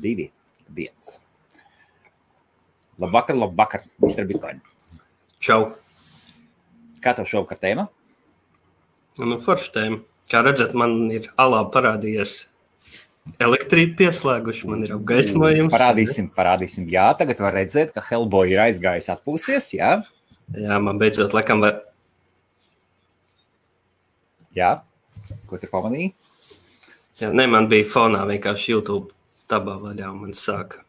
2, 1. Labvakar, Mr. Bitcoin. Čau. Kā tev šovakar tēma? Nu, forša tēma. Kā redzat, man ir alā parādījies elektrība pieslēguši, man ir apgaismojums. Parādīsim. Jā, tagad var redzēt, ka Hellboy ir aizgājis atpūsties, jā? Jā, man beidzot laikam var... Jā, ko tu pamanīji? Jā, ne, man bija fonā vienkārši YouTube tabā vaļā, un man sāka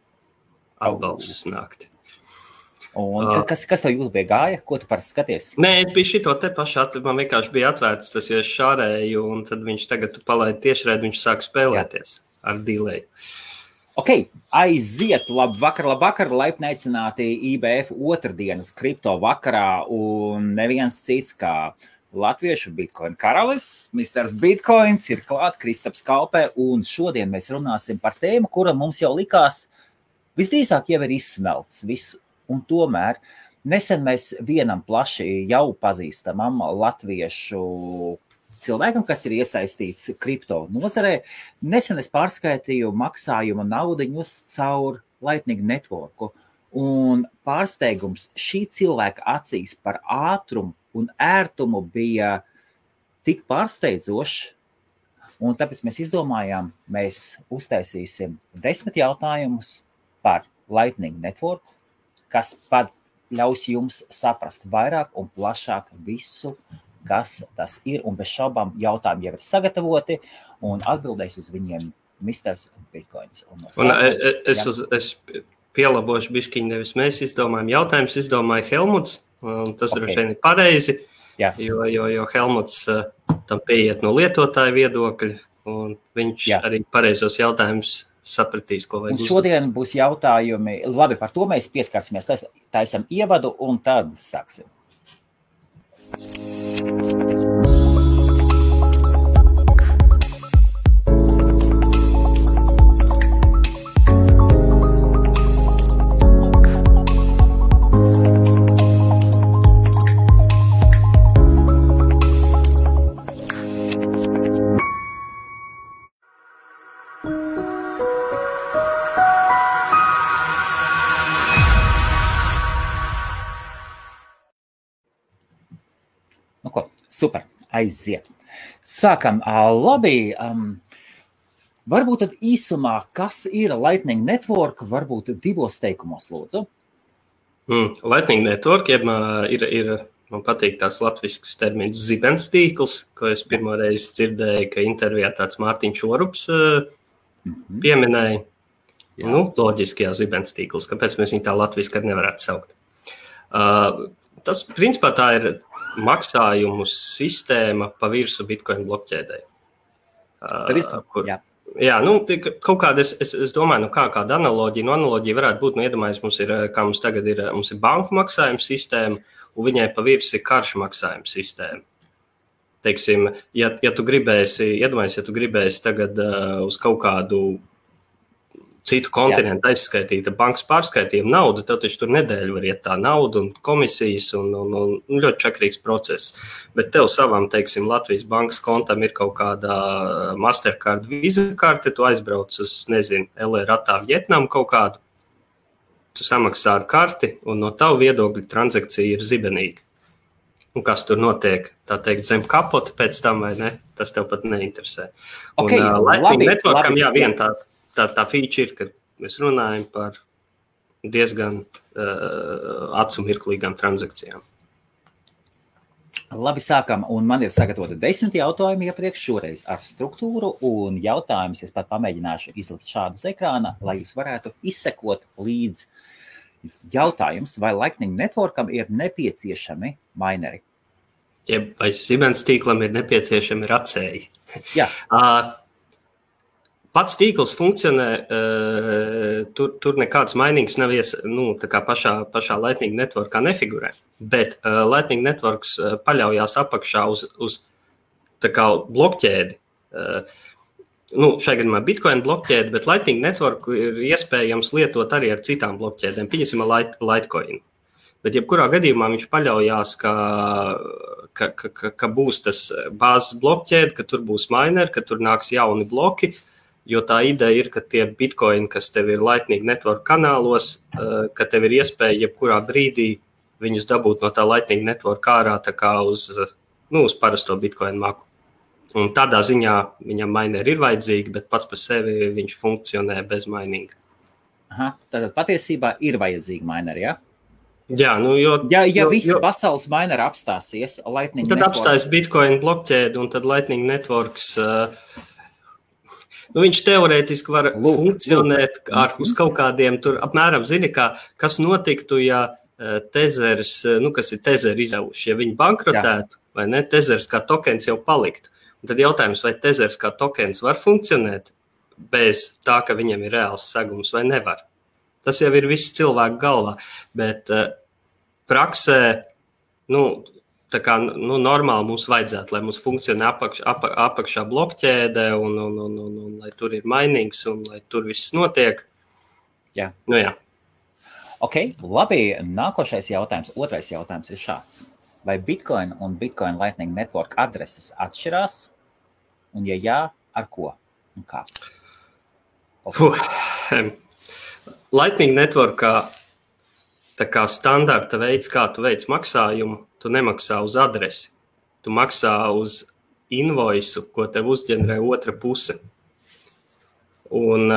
atbalsts nākt. Un kas tev YouTube gāja? Ko tu parasti skaties? Nē, es biju šito te pašu, man vienkārši bija atvērts tas, jo es šārēju, un tad viņš tagad tu palaidi tiešraidi, viņš sāk spēlēties ar delay. Ok, aiziet, labvakar, laipni aicināti IBF otrdienas kripto vakarā, un neviens cits kā latviešu Bitcoin karalis, Mr. Bitcoins ir klāt, Kristaps Kalpē, un šodien mēs runāsim par tēmu, kura mums jau likās visdrīzāk jau ir izsmelts visu. Un tomēr nesen mēs vienam plaši jau pazīstamam latviešu cilvēkam, kas ir iesaistīts kripto nozarē, nesen es pārskaitīju maksājumu naudiņus caur Lightning Networku. Un pārsteigums šī cilvēka acīs par ātrumu un ērtumu bija tik pārsteidzošs, un tāpēc mēs izdomājām, mēs uztaisīsim 10 jautājumus par Lightning Networku, kas pat ļaus jums saprast vairāk un plašāk visu, kas tas ir, un bez šaubām jautājumi jau ir sagatavoti, un atbildēs uz viņiem Mr. Bitcoins. Un es pielabošu bišķiņu, nevis mēs izdomājam jautājumus, izdomāja Helmuts, un tas droši vien ir pareizi, jo Helmuts tam pieiet no lietotāja viedokļa, un viņš arī pareizos jautājumus sapratīs, ko vajag uzdot. Šodien būs jautājumi, labi, par to mēs pieskarsimies, taisam ievadu un tad sāksim. Super, aiziet. Sākam, labi, varbūt tad īsumā, kas ir Lightning Network, varbūt 2 teikumos, lūdzu. Lightning Network, ir man patīk tās latvisks termins zibens tīkls, ko es pirmoreiz dzirdēju, ka intervijā tāds Mārtiņš Orups pieminēja. Nu, loģiski, zibens tīkls, kāpēc mēs viņu tā latviski arī nevarētu saukt. Tas, principā, tā ir maksājumu sistēma pa virsu Bitcoin blokķēdē. Jā, nu, kaut kāda, es domāju, kāda analoģija, analoģija varētu būt, iedomājies, mums tagad ir banku maksājuma sistēma, un viņai pa virsu ir karšu maksājuma sistēma. Teiksim, ja tu gribēsi tagad uz kaut kādu citu kontinentu aizskaitīta bankas pārskaitījuma naudu, tev taču tur nedēļu var iet tā nauda un komisijas un ļoti čakrīgs process. Bet tev savam, teiksim, Latvijas bankas kontam ir kaut kāda Mastercard Visa karte, tu aizbrauc uz, LR Ratā Vietnamu kaut kādu, tu samaksā ar karti un no tavu viedokļa transakcija ir zibenīga. Un kas tur notiek, tā teikt, zem kapota pēc tam vai ne, tas tev pat neinteresē. Okay, un Lightning Networkam, vien tā feature ir, kad mēs runājam par diezgan acu mirklīgām transakcijām. Labi, sākam, un man ir sagatavoti 10 jautājumi iepriekš šoreiz ar struktūru, un jautājumus es pat pamēģināšu izlikt šādu uz ekrāna, lai jūs varētu izsekot līdz jautājums, vai Lightning Networkam ir nepieciešami mineri. Vai Siemens tīklam ir nepieciešami racēji. Jā. Pats tīkls funkcionē, tur nekāds mainīgs nav tā kā pašā Lightning Networkā nefigurē, bet Lightning Networks paļaujās apakšā uz tā kā blokķēdi. Šai gadījumā Bitcoin blokķēdi, bet Lightning Network ir iespējams lietot arī ar citām blokķēdēm, pieņemsim Litecoin. Bet jebkurā gadījumā viņš paļaujās, ka būs tas bāzes blokķēde, ka tur būs mineri, ka tur nāks jauni bloki, Jo tā ideja ir, ka tie bitcoini, kas tev ir Lightning Network kanālos, ka tev ir iespēja jebkurā brīdī viņus dabūt no tā Lightning Network ārā tā kā uz parasto bitcoin maku. Un tādā ziņā viņam mineri ir vajadzīgi, bet pats par sevi viņš funkcionē bez mininga. Aha, tad patiesībā ir vajadzīgi mineri, ja? Jā, Ja visi pasaules mineri apstāsies, Lightning tad Network... apstājas bitcoin blokķēdi un tad Lightning Networks... viņš teorētiski var funkcionēt uz kaut kādiem tur apmēram, zini, kas notiktu, ja Tezers, kas ir Tezeri izdevuši, ja viņi bankrotētu, vai ne, Tezers kā tokens jau paliktu. Un tad jautājums, vai Tezers kā tokens var funkcionēt bez tā, ka viņam ir reāls segums vai nevar. Tas jau ir viss cilvēku galvā, bet praksē, tā kā normāli mums vajadzētu, lai mums funkcionē apakšā blokķēde un lai tur ir mainings un lai tur viss notiek. Jā. Jā. Ok, labi, nākošais jautājums, otrais jautājums ir šāds. Vai Bitcoin un Bitcoin Lightning Network adreses atšķirās? Un ja jā, ar ko un kā? Lightning Networkā tā kā standarta veids, kā tu veic maksājumu, tu nemaksā uz adresi. Tu maksā uz invoisu, ko tev uzģenerē otra puse. Un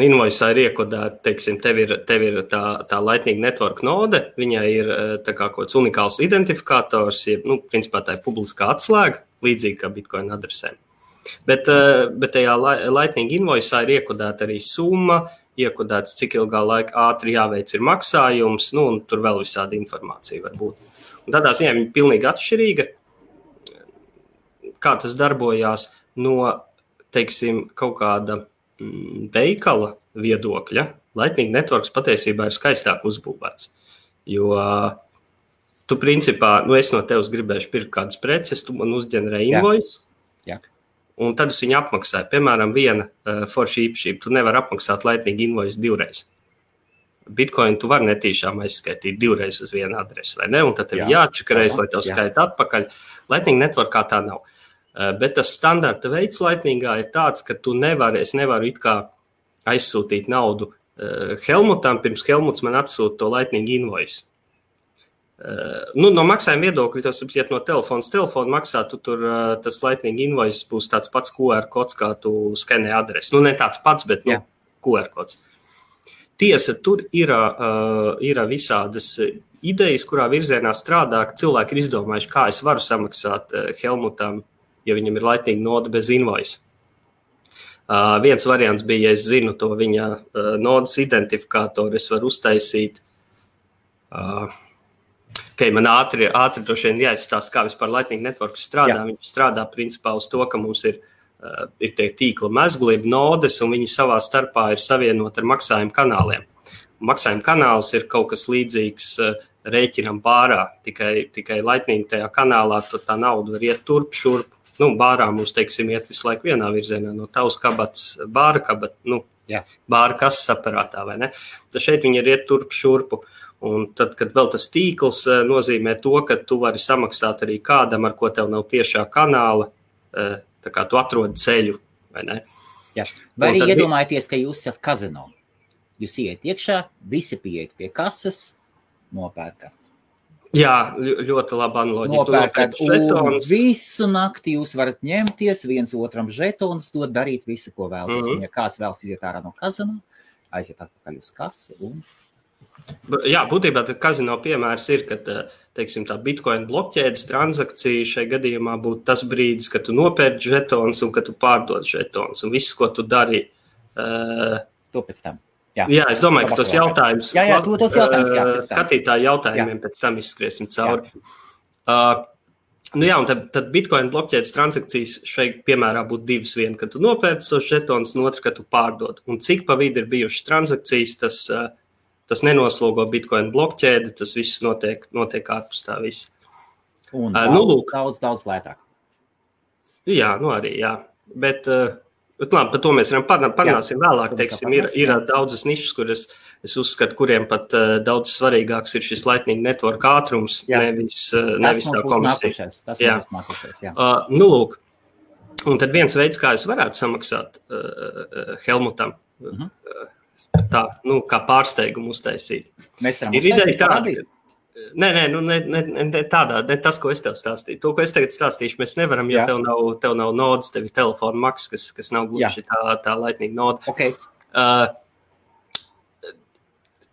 invoisā ir iekodēta, teiksim, tev ir tā Lightning Network node, viņai ir tā kā kaut kāds unikāls identifikators, principā tā ir publiskā atslēga, līdzīgi kā Bitcoin adresēm. Bet tajā Lightning invoisā ir iekodēta arī summa, iekodēts, cik ilgā laika ātri jāveic ir maksājums, un tur vēl visāda informācija var būt. Un tādā ziņā viņa pilnīgi atšķirīga, kā tas darbojās no, teiksim, kaut kāda veikala viedokļa. Lightning Networks patiesībā ir skaistāk uzbūvēts, jo tu principā, es no tevis gribēšu pirkt kādas preces, tu man uzģenerē invoice, un tad es viņu apmaksāju. Piemēram, viena forša īpašība, tu nevar apmaksāt Lightning invoice divreiz. Bitcoin tu var netīšām aizskaitīt divreiz uz vienu adresi, vai ne? Un tad tev jāatšakarēs, lai tev skaita atpakaļ. Lightning Networkā tā nav. Bet tas standarta veids Lightningā ir tāds, ka es nevaru it kā aizsūtīt naudu Helmutam, pirms Helmuts man atsūta to Lightning invoice. No maksājuma viedokļa, tas iet no telefona maksā, tu tur tas Lightning invoice būs tāds pats QR kods, kā tu skenē adresi. Ne tāds pats, bet QR kods. Tiesa, tur ir visādas idejas, kurā virzienā strādā, ka cilvēki ir izdomājuši, kā es varu samaksāt Helmutam, ja viņam ir Lightning node bez invoice. Viens variants bija, ja es zinu to viņa nodes identifikātoru, es varu uztaisīt. Man ātri droši vien jāizstāst, kā vispār Lightning Network strādā. Viņš strādā principā uz to, ka mums ir tie tīkla mezgli, nodes, un viņi savā starpā ir savienot ar maksājumu kanāliem. Maksājuma kanāls ir kaut kas līdzīgs rēķinam bārā, tikai Lightning tajā kanālā, tur tā nauda var iet turp, šurp. Bārā mums, teiksim, iet visu laiku vienā virzienā, no tavas kabatas bāra kabata, bāra kases aparātā, vai ne? Tad šeit viņi ir iet turp, šurpu. Un tad, kad vēl tas tīkls nozīmē to, ka tu vari samaksāt arī kādam, ar ko tev nav tiešā kanāla, tā kā tu atrodi ceļu, vai ne? Jā. Vai arī iedomājieties, ka jūs esat kazino. Jūs iet iekšā, visi pieiet pie kases, nopērkat. Jā, ļoti laba analoģija. Nopērkat, un visu nakti jūs varat ņemties, viens otram žetonus, dot darīt visu, ko vēlaties. Un ja kāds vēlas iziet ārā no kazino, aiziet atpakaļ uz kasi un... Jā, būtībā kazino piemērs ir, ka, teiksim, tā Bitcoin blokķēdes transakcija šai gadījumā būtu tas brīdis, kad tu nopērci žetonus un kad tu pārdod žetonus. Un viss, ko tu dari... To pēc tam. Jā, es domāju, ka tos jautājums... tos jautājums, skatītāju jautājumiem pēc tam izskriesim cauri. Un tad Bitcoin blokķēdes transakcijas šai piemērā būtu divas. Viena, kad tu nopērci tos žetonus, un otra, kad tu pārdod. Un cik pa vidu ir bijušas transakcijas, tas nenoslogo Bitcoin blokķēdi, tas viss notiek ārpus tā viss. Un daudz lētāk. Jā, arī, jā. Bet labi, par to mēs parunāsim vēlāk. Teiksim, ir daudzas nišas, kuras es uzskatu, kuriem pat daudz svarīgāks ir šis Lightning Network ātrums, nevis tā komisija. Tas mums nākušais, jā. Lūk. Un tad viens veids, kā es varētu samaksāt Helmutam, tā, kā pārsteigumu uztaisīt. Mēs varam uztaisīt parādīt? Ne tādā, ne tas, ko es tev stāstīju. To, ko es tagad stāstīšu, mēs nevaram, jo tev nav nodas, tev ir telefona maksas, kas nav gluži tā laitnīga noda. Okay.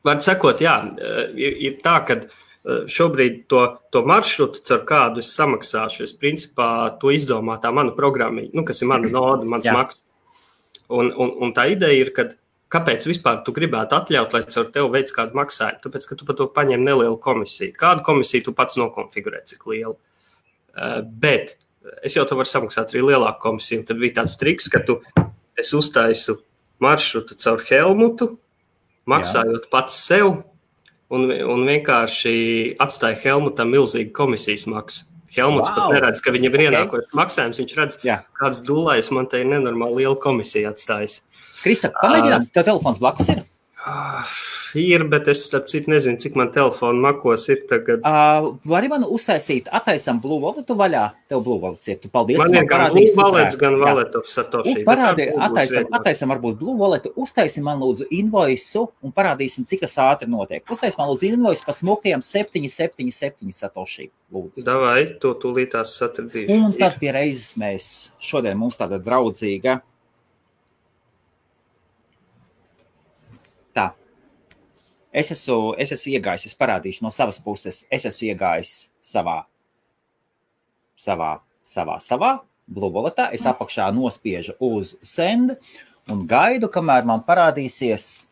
Var sakot, ir tā, ka šobrīd to maršrutu, ar kādu es samaksāšu, es principā to izdomā tā mana programmiņa, kas ir mana noda, mans maksas. Un tā ideja ir, ka kāpēc vispār tu gribētu atļaut, lai caur tev veids kādu maksājumu? Tāpēc, ka tu par to paņem nelielu komisiju. Kādu komisiju tu pats nokonfigurē, cik lielu? Bet es jau tev varu samaksāt arī lielāku komisiju. Tad bija tāds triks, ka es uztaisu maršrutu caur Helmutu, maksājot pats sev, un vienkārši atstāja Helmutam milzīgu komisijas maksu. Helmuts pat neredz, ka viņam ir ienākošs maksājums. Viņš redz, kāds dulais man te ir nenormāli liela komisija atstājis. Kristap, pamēģinām, tev telefons blakus ir? Ir, bet es nezinu, cik man telefonu makos ir tagad. Vari man uztaisīt, attaisam Blue Walletu vaļā? Tev Blue Wallets ir, tu paldies. Man ir gan Blue Wallets, gan Wallet of Satoshi. Attaisam varbūt Blue Walletu, uztaisim man lūdzu invoisu un parādīsim, cik tas ātri notiek. Uztaisim man lūdzu invoisu pa smukajiem 777 Satoshi, lūdzu. Davai, to tūlītās satradīšu. Un tad pie reizes mēs šodien mums tāda draudzīga. Tā. Es esmu iegājis, es parādīšu no savas puses, es esmu iegājis savā Blue Walletā, es apakšā nospiežu uz send un gaidu, kamēr man parādīsies,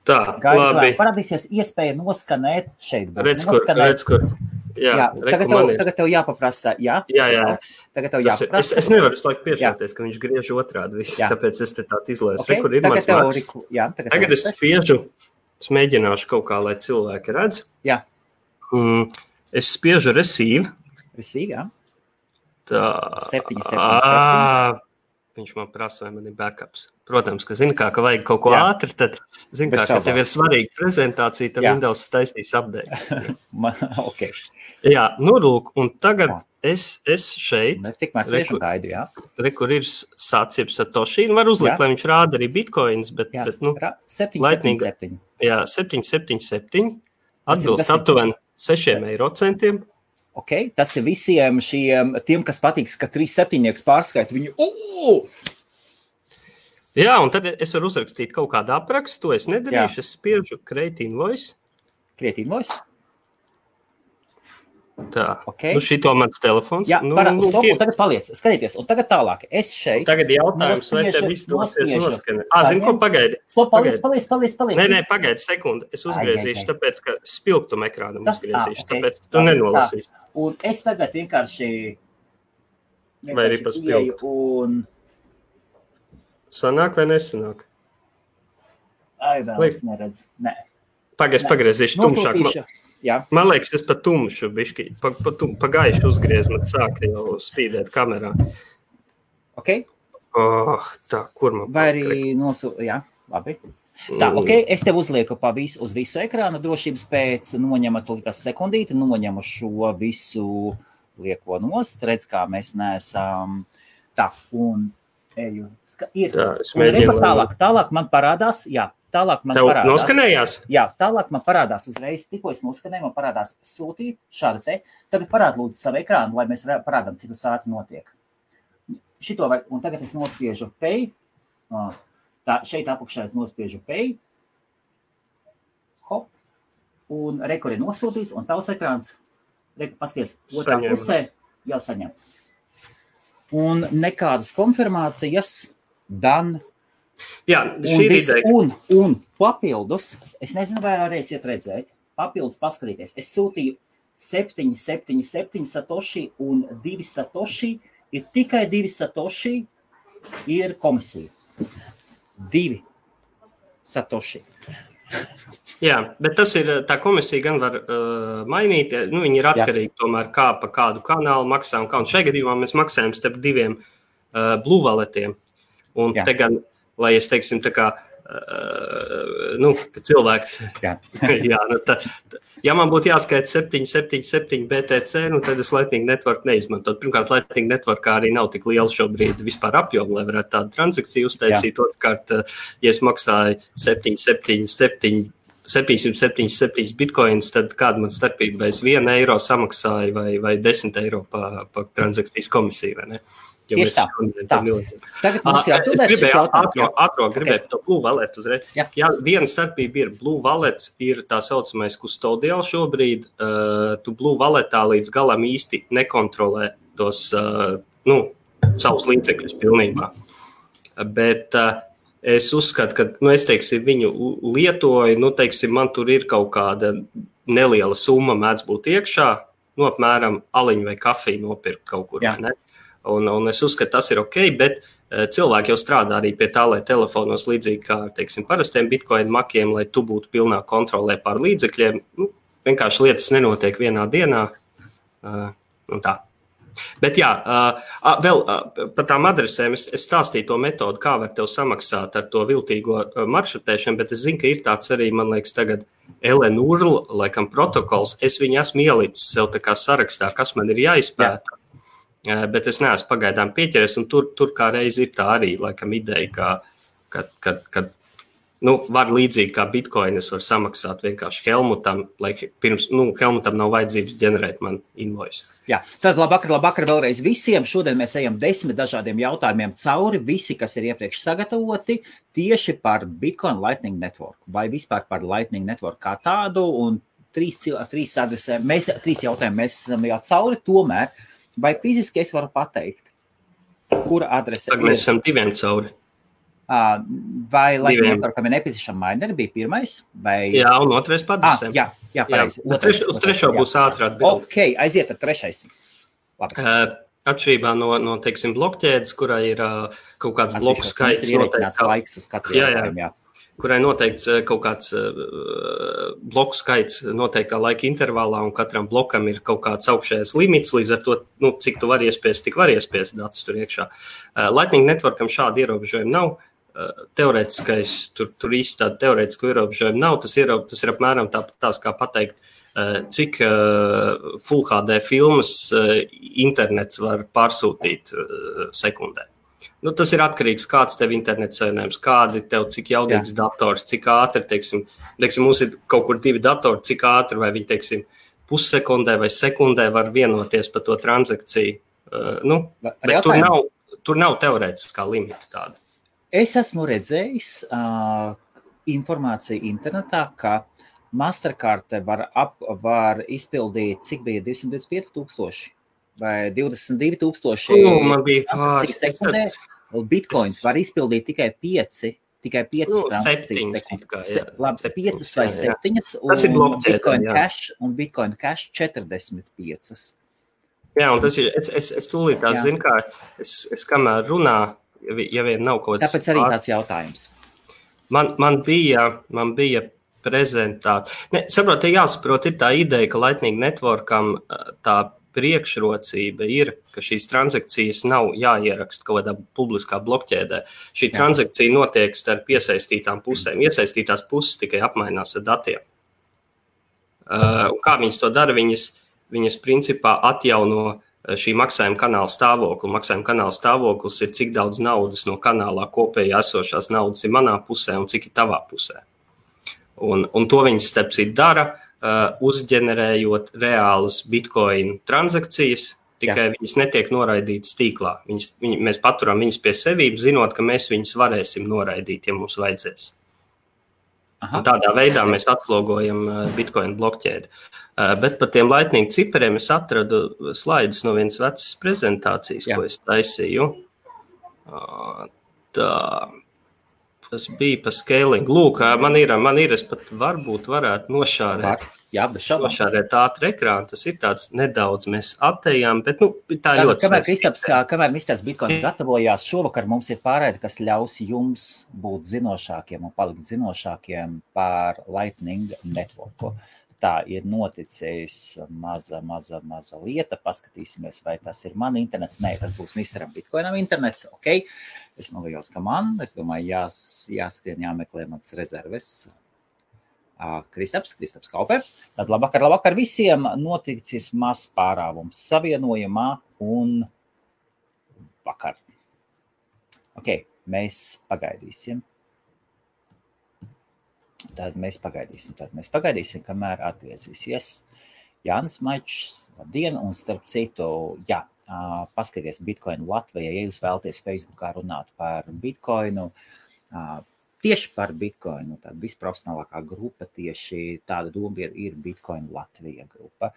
parādīsies iespēja noskanēt šeit. Redz, kur. Tagad tev jāpaprasa, Tagad tev jāpaprasa. Es nevaru visu laiku piešauties, ka viņš griež otrādi visu, tāpēc es te tādu izlēsu. Rekur ir mans maks. Tagad es spiežu, es mēģināšu kaut kā, lai cilvēki redz. Jā. Es spiežu receive. Receive, jā. Tā. 777. Viņš man prasa, vai man ir backups. Protams, ka zini kā, ka vajag kaut ko ātri, tad zini kā, ka tev ir svarīga prezentācija, tad Windows taisīs updates. Okay. Jā, lūk, un tagad es šeit. Mēs tikmēr sēžu gaidu, jā. Rekur ir sācieb Satoshi, var uzlikt, lai viņš rāda arī bitcoins, bet 777. Jā, 777. Atbilst aptuveni 6 eiro centiem. Okay, tas ir visiem tiem, kas patīk, ka 3/7 pārskaita viņu. Jā, un tad es varu uzrakstīt kaut kādu aprakstu, to es nedarīšu, es spiežu create invoice. Create invoice? Tā, šito mans telefons. Jā, un tagad paliec, skatieties, un tagad tālāk. Es šeit. Tagad jautājums, vai te viss dosies noskanēt. Zini, ko pagaidi? Paliec. Nē, pagaidi sekundi. Es uzgriezīšu, tāpēc, ka spilgtumu ekrānam uzgriezīšu, tāpēc tu nenolasīsi. Un es tagad vienkārši vai arī pa spilgtu. Sanāk vai nesanāk? Vēl es neredzu. Nē. Pagriezīšu tumšāk. Jā. Man liekas, es pa tumšu bišķi, pa gaišu uzgriez, man sāka jau spīdēt kamerā. Ok. Tā, kur man vai arī jā, labi. Tā, ok, es tev uzlieku uz visu ekrānu drošības pēc, noņemat līdz sekundīti, noņemu šo visu lieko nost, redz, kā mēs neesam. Tā, un eju. Tālāk man parādās, Tālāk man parādās. Noskanējās? Jā, tālāk man parādās uzreiz, tikko es noskanēju, man parādās sūtīt šādu te. Tagad parād lūdzu savu ekrānu, lai mēs parādām, cik tas ātri notiek. Un tagad es nospiežu pay. Šeit apakšā es nospiežu pay. Hop. Un rekur ir nosūtīts, un tavs ekrāns, pasties, otrā pusē jau saņemts. Un nekādas konfirmācijas, done. Jā, šī ir ideja. Un papildus, es nezinu, vai varēsiet redzēt, papildus paskatīties. Es sūtīju 777 Satoshi un 2 Satoshi, ir tikai 2 Satoshi, ir komisija. 2 Satoshi. Jā, bet tas ir, tā komisija gan var mainīt, viņi ir atkarīgi tomēr kā pa kādu kanālu maksā un kā. Un šajā gadījumā mēs maksājam starp 2 Blue Walletiem. Un te gan lai es, teiksim, tā kā ka cilvēks, ja man būtu jāskaita 777 BTC, tad es Lightning Network neizmantot. Pirmkārt, Lightning Networkā arī nav tik liela šobrīd vispār apjoma, lai varētu tādu transakciju uztaisīt. Otrkārt, ja es maksāju 777 bitcoins, tad kāda man starpība, vai es 1 eiro samaksāju vai 10 eiro pa transakcijas komisiju, vai ne? Tieši tā. Tagad mums gribēju to Blue Wallet uzreiz. Jā, viena starpība ir Blue Wallet ir tā saucamais custodial šobrīd. Tu Blue Walletā līdz galam īsti nekontrolē tos, savus līdzekļus pilnībā. Bet es uzskatu, ka, es teiksim, viņu lietoju, man tur ir kaut kāda neliela summa mēdz būt iekšā, apmēram aliņu vai kafiju nopirkt kaut kur, ne? Un es uzskatu, tas ir ok, bet cilvēki jau strādā arī pie tā, lai telefonos līdzīgi kā, teiksim, parastiem bitcoin makiem, lai tu būtu pilnā kontrolē pār līdzekļiem. Vienkārši lietas nenotiek vienā dienā. Un tā. Bet jā, vēl par tām adresēm es stāstīju to metodu, kā var tev samaksāt ar to viltīgo maršrutēšanu, bet es zinu, ka ir tāds arī, man liekas, tagad LNURL, laikam protokols. Es viņu esmu ielicis sev tā kā sarakstā, kas man ir jāizpēta. Bet es neesmu pagaidām pieķeries, un tur kā reiz ir tā arī, laikam, ideja, ka var līdzīgi kā bitcoinis var samaksāt vienkārši Helmutam, lai pirms, Helmutam nav vajadzības ģenerēt man invoice. Jā, tad labvakar vēlreiz visiem. Šodien mēs ejam 10 dažādiem jautājumiem cauri, visi, kas ir iepriekš sagatavoti, tieši par Bitcoin Lightning Network, vai vispār par Lightning Network kā tādu, un trīs adresēm, trīs jautājumi mēs esam jau cauri, tomēr. Vai fiziski es varu pateikt, kura adrese ir? Mēs esam diviem cauri. Vai Lightning Networkam ir nepieciešama mineri, bija pirmais? Vai... Jā, un otrais pa adresēm. Jā, pareizi. Uz trešo būs ātrā atbildi. Ok, aiziet ar trešais. Labi. Atšķirībā no teiksim, blokķēdes, kurai ir kaut kāds bloku skaits. Laiks uz katru jautājumu, jā. Kurai noteikts kaut kāds bloku skaits noteiktā laika intervālā, un katram blokam ir kaut kāds augšējais limits, līdz ar to, cik tu vari iespiest, tik var iespiest datus tur iekšā. Lightning Networkam šādi ierobežojumi nav. Teorētiskais, tur īsti tāda teorētiska ierobežojuma nav. Tas ir apmēram tās kā pateikt, cik Full HD filmas internets var pārsūtīt sekundē. Tas ir atkarīgs, kāds tev internets savienojums, kādi tev, cik jaudīgs dators, cik ātri, teiksim, mums ir kaut kur 2 datori, cik ātri, vai viņi, teiksim, pussekundē vai sekundē var vienoties par to transakciju. Bet tur nav teorētiskā limita tāda. Es esmu redzējis informāciju internetā, ka Mastercard var izpildīt, cik bija 225,000 vai 22,000. Man bija pāris. Bitcoins var izpildīt tikai 5 transakcijas. 5 vai 7, un Bitcoin Cash un Bitcoin Cash 45. Jā, un tas ir, es tūlīt tā zinu, kā es kamēr runā, ja vien nav kaut kāds... Tāpēc arī tāds jautājums. Man bija prezentācija. Saprot, jāsaprot, ir tā ideja, ka Lightning Networkam tā priekšrocība ir, ka šīs transakcijas nav jāieraksta kaut kādā publiskā blokķēdē. Šī transakcija notiek starp iesaistītām pusēm. Iesaistītās puses tikai apmainās ar datiem. Un kā viņas to dara? Viņas principā atjauno šī maksājuma kanāla stāvokli. Maksājuma kanāla stāvoklis ir, cik daudz naudas no kanālā kopējā esošās naudas ir manā pusē un cik ir tavā pusē. Un to viņas starpcīt dara, uzģenerējot reālas bitcoin transakcijas, tikai viņas netiek noraidītas tīklā. Mēs paturam viņas pie sevības, zinot, ka mēs viņas varēsim noraidīt, ja mums vajadzēs. Un tādā veidā mēs atslogojam bitcoin blokķēdi. Bet par tiem Lightning cipariem es atradu slaidus no vienas vecas prezentācijas, ko es taisīju. Tas bija par scaling. Lūk, man ir, es pat varbūt varētu nošārēt ātru ekrānu. Tas ir tāds nedaudz mēs attējām, bet tā ļoti Kamēr Kristaps Bitcoin gatavojās, šovakar mums ir pārēde, kas ļaus jums būt zinošākiem un palikt zinošākiem par Lightning Networku. Tā ir noticis maza lieta. Paskatīsimies, vai tas ir man internets. Nē, tas būs Misteram Bitcoinam internets. Ok, es novējos, ka man. Es domāju, jāskrien, jāmeklē mans rezerves. Kristaps Kauper. Tad labvakar visiem. Noticis mazs pārāvums savienojumā un vakar. Ok, mēs pagaidīsim. Tad mēs pagaidīsim, kamēr atgriezīsies Jānis Maičs. Labdien, un starp citu, paskaties Bitcoin Latvijā, ja jūs vēlaties Facebookā runāt par Bitcoinu, tieši par Bitcoinu, tāda visprofesionālākā grupa, tieši tāda doma ir Bitcoin Latvija grupa.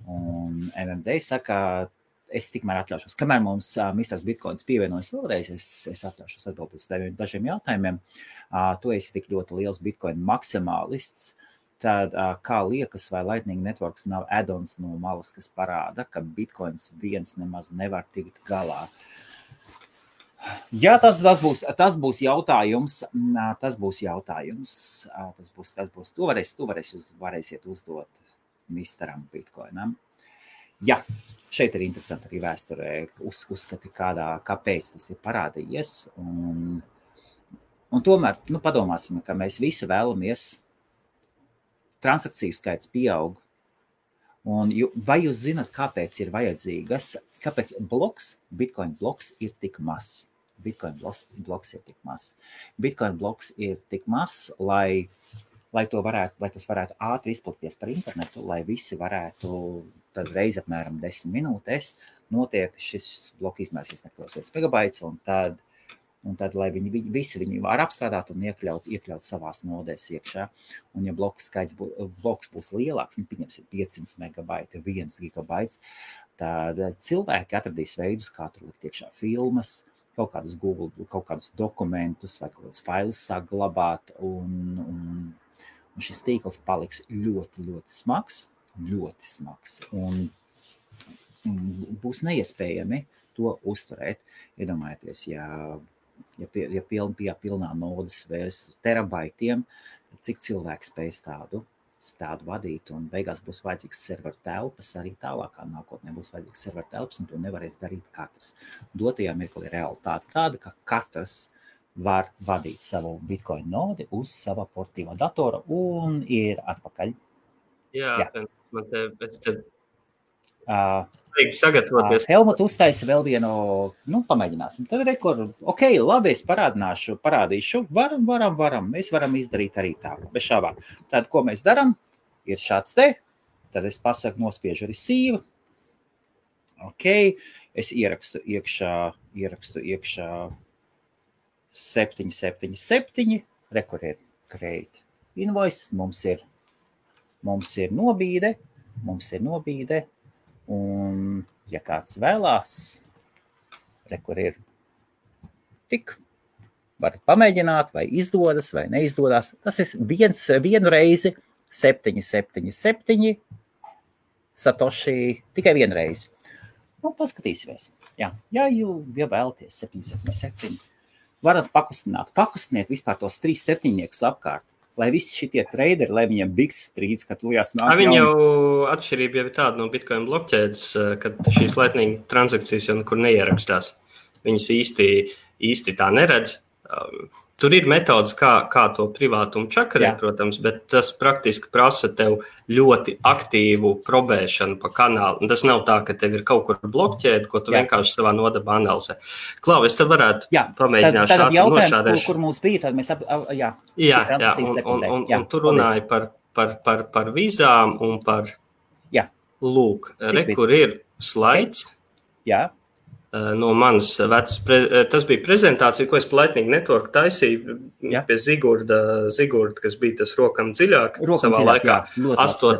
Un MMD saka, es tikmēr atļaušos, kamēr mums Misters Bitcoins pievienojas vēlreiz, es atļaušos atbildēt uz dažiem jautājumiem. Tu esi tik ļoti liels Bitcoin maksimālists, tad kā liekas, vai Lightning Networks nav add-ons no malas, kas parāda, ka Bitcoins viens nemaz nevar tikt galā? Jā, tas būs jautājums. To varēsiet uzdot Misteram Bitcoinam. Jā, šeit ir interesanti arī vēsturē uzskati, kāpēc tas ir parādījies. Un tomēr, padomāsim, ka mēs visi vēlamies transakciju skaits pieaug. Un vai jūs zināt, kāpēc ir vajadzīgas, kāpēc Bitcoin bloks ir tik mazs? Bitcoin bloks ir tik mazs. Bitcoin bloks ir tik mazs, lai tas varētu ātri izplatīties par internetu, lai visi varētu tad reiz apmēram 10 minūtēs notiek šis bloks izmērs nekļūs 1 megabaits, un tad lai viņi var apstrādāt un iekļaut savās nodēs iekšā. Un ja bloks būs lielāks, pieņemsim 500 megabaiti, 1 gigabaits, tad cilvēki atradīs veidus, kā tur likt iekšā filmas, kaut kādus Google, kaut kādus dokumentus vai kaut kādus failus saglabāt, un šis tīkls paliks ļoti, ļoti smags, un būs neiespējami to uzturēt. Iedomājieties, ja pilnā nodas vērs terabaitiem, cik cilvēks spēs tādu vadīt, un beigās būs vajadzīgs serveru telpas, arī tālākā nākotnē būs vajadzīgs serveru telpas, un to nevarēs darīt katrs. Dotajā mirklī realitāte tāda, ka katrs var vadīt savu Bitcoin nodi uz sava portīvā datora un ir atpakaļ. Jā. Man te sagatavoties. Helmut uztaisa vēl vienu, pamēģināsim. Tad ok, labi, es parādīšu. Varam. Mēs varam izdarīt arī tā, bez šābām. Tad, ko mēs daram, ir šāds te. Tad es pasaku, nospiežu receive. Ok, es ierakstu iekšā 777. Rekur ir create invoice. Mums ir nobīde. Un, ja kāds vēlās, rekur ir tik, varat pamēģināt, vai izdodas, vai neizdodas. Tas ir vienu reizi 777 Satoshi, tikai vienu reizi. Paskatīsimies. Ja vēlaties 777, varat pakustiniet vispār tos 3 septiņniekus apkārt. Lai visi šitie traderi, lai viņiem biks strīds, kad lujās nāk. Viņi jau atšķirība jau ir tāda no Bitcoin blokķēdes, kad šīs Lightning transakcijas jau nekur neierakstās. Viņas īsti tā neredz. Tur ir metodas, kā to privātumu čakarēt, protams, bet tas praktiski prasa tev ļoti aktīvu probēšanu pa kanālu. Un tas nav tā, ka tev ir kaut kur blokķēde, ko tu vienkārši savā nodabā analizē. Klau, es te varētu pamēģināt šādi nošādēšu. Jautājums, kur mums bija, tad mēs un tu runāji par vīzām un par lūk, kur ir slaids. Jā. No manas vecas, tas bija prezentācija, ko es pa Lightning Network taisīju pie Zigurda, kas bija tas rokam dziļāk savā laikā, 8.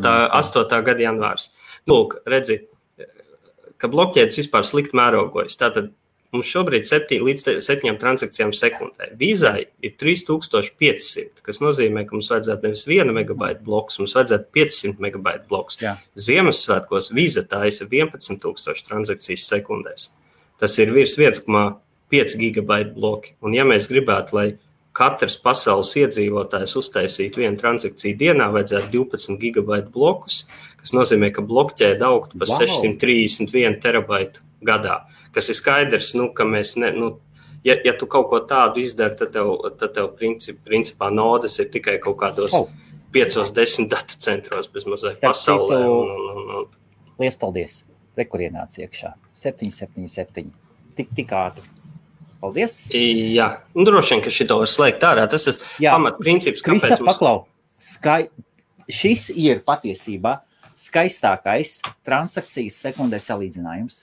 gada janvārs. Lūk, redzi, ka blokķēdes vispār slikt mērogojas. Tātad mums šobrīd līdz 7 transakcijām sekundē. Vīzai ir 3500, kas nozīmē, ka mums vajadzētu nevis 1 megabaitu bloks, mums vajadzētu 500 megabaitu bloks. Ziemassvētkos Vīza taisa 11,000 transakcijas sekundēs. Tas ir virs 1,5 gigabaitu bloki. Un ja mēs gribētu, lai katrs pasaules iedzīvotājs uztaisīt vienu transakciju dienā, vajadzētu 12 gigabaitu blokus, kas nozīmē, ka blokķēde augtu par 631 terabaitu gadā, kas ir skaidrs, ka mēs ja tu kaut ko tādu izdari, tad tev principā nodes ir tikai kaut kādos 5-10 datu centros bez mazliet pasaulē. Liels paldies. Kur ienāca iekšā. 777. Tik ātri. Paldies. Jā, droši vien, ka šito var slēgt ārā. Tas ir pamatprincips, kāpēc mums... Paklau, šis ir patiesībā skaistākais transakcijas sekundē salīdzinājums.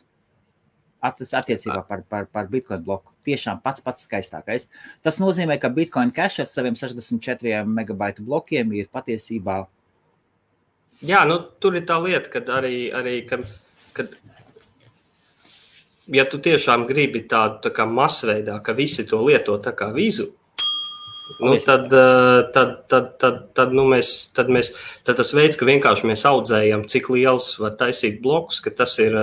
Attiecībā par Bitcoin bloku. Tiešām pats skaistākais. Tas nozīmē, ka Bitcoin Cash ar saviem 64 megabaitu blokiem ir patiesībā... Jā, tur ir tā lieta, kad arī kad ja tu tiešām gribi tādu tā kā masveidā, ka visi to lieto tā kā vizu, tad tas veids, ka vienkārši mēs audzējam, cik liels var taisīt blokus, ka tas ir,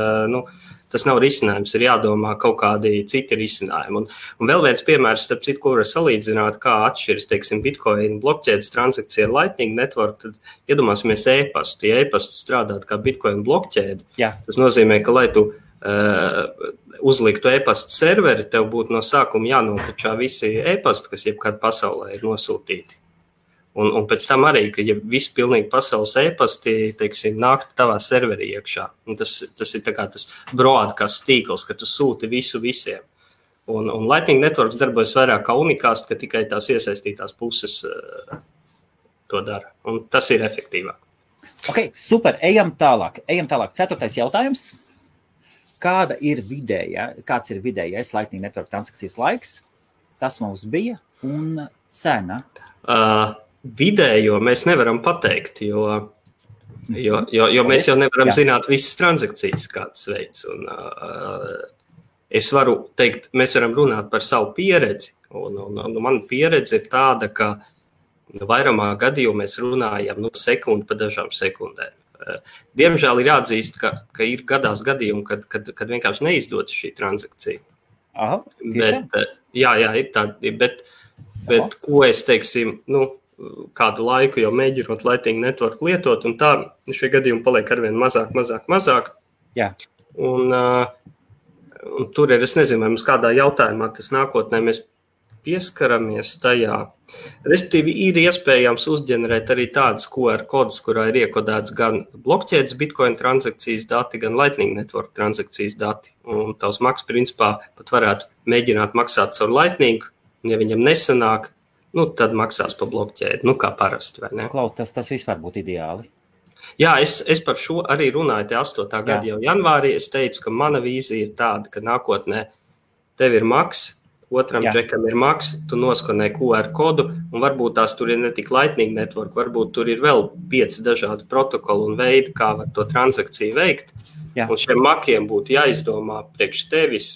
tas nav risinājums, ir jādomā kaut kādi citi risinājumi. Un vēl viens piemērs, starp citu, ko var salīdzināt, kā atšķiras, teiksim, Bitcoin blokķēdes transakcija ar Lightning Network, tad iedomāsimies e-pastu. Ja e-pasts strādāt kā Bitcoin blokķēde, tas nozīmē, ka, lai tu uzliktu e-pastu serveri, tev būtu no sākuma jānokačā visi e-pasti, kas jebkad pasaulē ir nosūtīti. Un pēc tam arī, ka ja visi pilnīgi pasaules e-pasti, teiksim, nāk tavā serverī iekšā. Un tas ir tā kā tas broadcast tīkls, ka tu sūti visu visiem. Un Lightning Networks darbojas vairāk kā unikāst, ka tikai tās iesaistītās puses to dara. Un tas ir efektīvāk. Ok, super. Ejam tālāk. 4. jautājums. Kāds ir vidējais Lightning Network transakcijas laiks? Tas mums bija un cena. Vidējo mēs nevaram pateikt, jo mēs jau nevaram zināt visas transakcijas, kādas veids. Un, es varu teikt, mēs varam runāt par savu pieredzi. Un mana pieredze ir tāda, ka vairumā gadījumā mēs runājam sekundi pa dažām sekundēm. Diemžēl ir jāatzīst, ka ir gadījumi, kad vienkārši neizdodas šī transakcija. Aha, ir tādi, bet ko es teiksim, kādu laiku jau mēģinot Lightning Network lietot, un tā šie gadījumi paliek arvien mazāk. Jā. Un tur ir, es nezinu, vai mums kādā jautājumā tas nākotnē mēs pieskaramies tajā. Respektīvi, ir iespējams uzģenerēt arī tādas QR kodus, kurā ir iekodēts gan blokķēdes Bitcoin transakcijas dati, gan Lightning Network transakcijas dati. Un tavs maks, principā, pat varētu mēģināt maksāt caur Lightning, un ja viņam nesanāk, tad maksās pa blokķēdi, kā parasti, vai ne? Klau, tas vispār būtu ideāli. Jā, es par šo arī runāju te 8. gada jau janvārī. Es teicu, ka mana vīzija ir tāda, ka nākotnē tev ir maks, otram džekam ir maks, tu noskanē QR kodu, un varbūt tās tur ir ne tik Lightning Network, varbūt tur ir vēl 5 dažādi protokoli un veidi, kā var to transakciju veikt. Jā. Un šiem makiem būtu jāizdomā priekš tevis,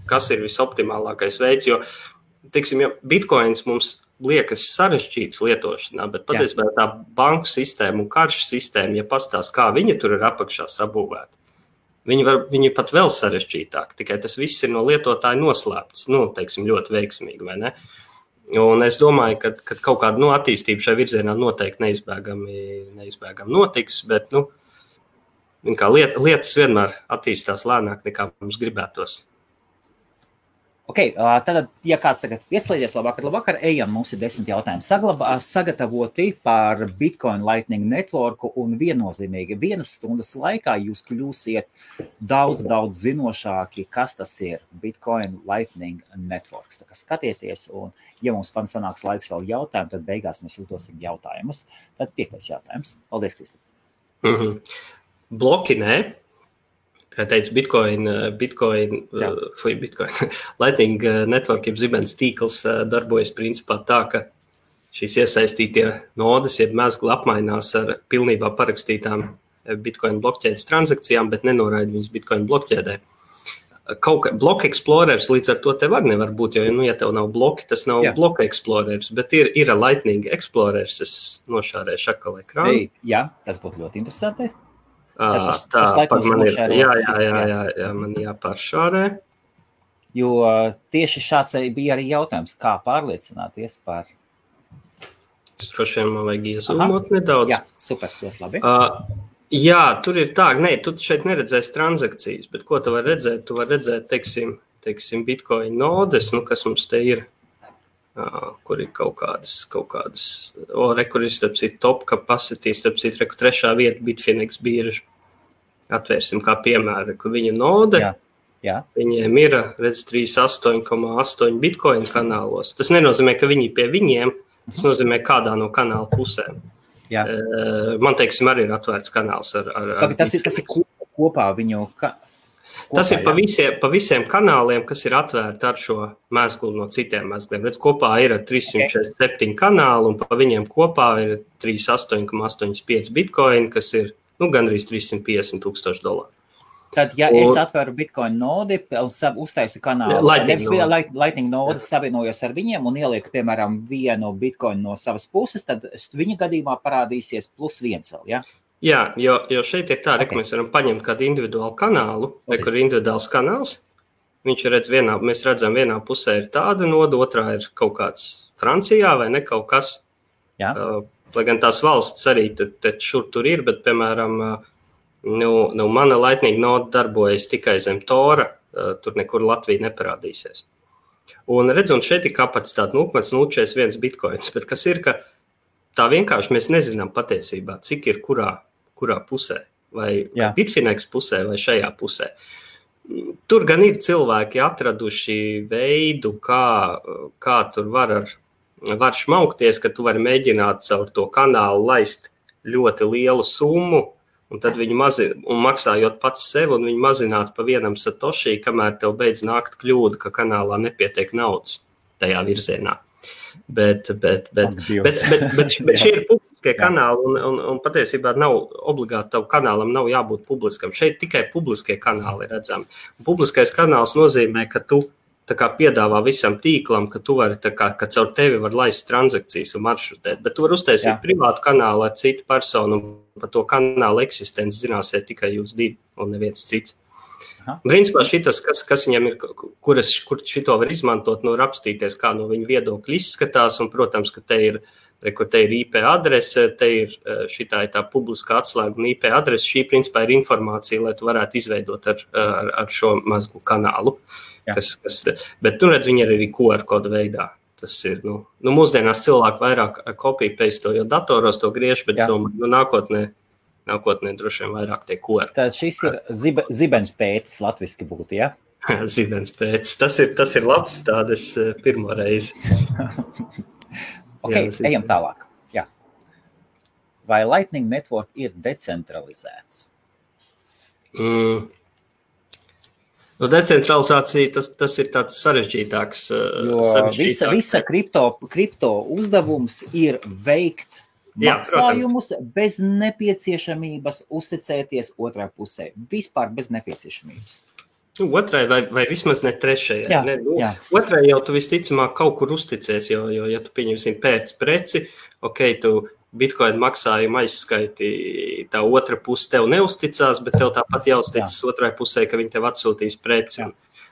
kas ir visoptimālākais veids, jo, teiksim, ja Bitcoins mums liekas sarežģīts lietošanā, bet patiesībā tā banku sistēma un karšu sistēma, ja pastās, kā viņa tur ir apakšā sabūvēta, viņi pat vēl sarežģītāk, tikai tas viss ir no lietotāja noslēpts, teiksim, ļoti veiksmīgi, vai ne? Un es domāju, ka kaut kāda attīstība šai virzienā noteikti neizbēgami notiks, bet, lietas vienmēr attīstās lēnāk, nekā mums gribētos. Ok, tad, ja kāds tagad ieslēdzies, labvakar, ejam, mums ir 10 jautājumi sagatavoti par Bitcoin Lightning Networku un viennozīmīgi 1 stundas laikā jūs kļūsiet daudz zinošāki, kas tas ir Bitcoin Lightning Networks. Tā kā skatieties, un ja mums sanāks laiks vēl jautājumu, tad beigās mēs uzdosim jautājumus. Tad 5. jautājums. Paldies, Kristi. Bloki, nē. Kā teica, Bitcoin Lightning Network, jeb zibens tīkls darbojas principā tā, ka šīs iesaistītie nodes, jeb mezgli apmainās ar pilnībā parakstītām Bitcoin blokķēdes transakcijām, bet nenoraida viņas Bitcoin blokķēdē. Block Explorers līdz ar to tev arī nevar būt, jo, ja tev nav bloki, tas nav Block Explorers, bet ir Lightning Explorers, es nošārēšu atkal ekrānu. Jā, tas būtu ļoti interesanti. Tā, man ir, jā, man jāpāršārē. Jo tieši šāds bija arī jautājums, kā pārliecināties par... Droši vien man vajag iezūmot nedaudz. Jā, super, ļoti labi. Jā, tur ir tā, tu šeit neredzēsi transakcijas, bet ko tu vari redzēt? Tu vari redzēt, teiksim Bitcoin nodes, kas mums te ir, kur ir kaut kādas, kur ir, starp citu, top capacity, starp citu, 3. vieta Bitfinex birža. Atvērsim kā piemēra, kur viņa node, Jā. Viņiem ir, redz, 38,8 Bitcoin kanālos. Tas nenozīmē, ka viņi pie viņiem, tas nozīmē kādā no kanāla pusēm. Jā. Man, teiksim, arī ir atvērts kanāls ar tas ir kopā viņu... Tas ir pa visiem kanāliem, kas ir atvērti ar šo mēslu no citiem mēsliem. Redz, kopā ir 347 kanāli, un pa viņiem kopā ir 38,85 Bitcoin, kas ir gandrīz $350,000. Tad, ja es atveru Bitcoin nodi un uztaisu kanālu, Lightning nodi savienojos ar viņiem un ielieku, piemēram, vienu Bitcoin no savas puses, tad viņa gadījumā parādīsies +1 vēl, ja? Jā, jo šeit ir tā, ka mēs varam paņemt kādu individuālu kanālu, kur ir individuāls kanāls. Viņš redz mēs redzam, vienā pusē ir tāda noda, otrā ir kaut kāds Francijā vai ne kaut kas. Jā. Lai gan tās valsts arī šur tur ir, bet, piemēram, mana Lightning node darbojas tikai zem Tora, tur nekur Latvija neparādīsies. Un redz, un šeit ir kapacitāte 0,041 bitkoins, bet kas ir, ka tā vienkārši mēs nezinām patiesībā, cik ir kurā pusē, vai Bitfinex pusē, vai šajā pusē. Tur gan ir cilvēki atraduši veidu, kā tur var šmaukties, ka tu vari mēģināt caur to kanālu laist ļoti lielu summu, un tad viņi maksājot pats sev, un viņi mazinātu pa vienam satoshi, kamēr tev beidz nākt kļūda, ka kanālā nepietiek naudas tajā virzienā. Bet šie ir publiskie kanāli, un patiesībā nav obligāti tavu kanālam nav jābūt publiskam. Šeit tikai publiskie kanāli redzami. Publiskais kanāls nozīmē, ka tu tā kā piedāvā visam tīklam, ka tu vari, ka caur tevi var laist transakcijas un maršrutēt, bet tu vari uztaisīt privātu kanālu ar citu personu, un par to kanālu eksistenci zināsiet tikai jūs divi un neviens cits. Principā šitas, kas viņam ir, kur šito var izmantot, rapstīties, kā no viņa viedokļa izskatās, un, protams, ka te ir IP adrese, te ir šitā ir tā publiskā atslēga un IP adrese, šī principā ir informācija, lai tu varētu izveidot ar šo mazgu kanālu. Bet, redz, viņi ir arī QR kodu veidā. Tas ir, mūsdienās cilvēki vairāk copy-paste, jo datoros to griež, bet es domāju, nākotnē droši vien vairāk tie QR. Tad šis ir zibenspēcis latviski būtu, ja? Zibenspēcis. Tas ir labs tādas pirmo reizi. Ejam tālāk. Jā. Vai Lightning Network ir decentralizēts? Decentralizācija, tas ir tāds sarežģītāks. Visa kripto uzdevums ir veikt maksājumus bez nepieciešamības uzticēties otrai pusē. Vispār bez nepieciešamības. Otrai vai vismaz ne trešajai. Otrai jau tu visticamāk kaut kur uzticies, jo ja tu pieņemsim pēc preci, tu Bitcoin maksājumu aizskaiti, tā otra puse tev neuzticās, bet tev tāpat jāuzticas otrai pusē, ka viņi tev atsūtīs preci.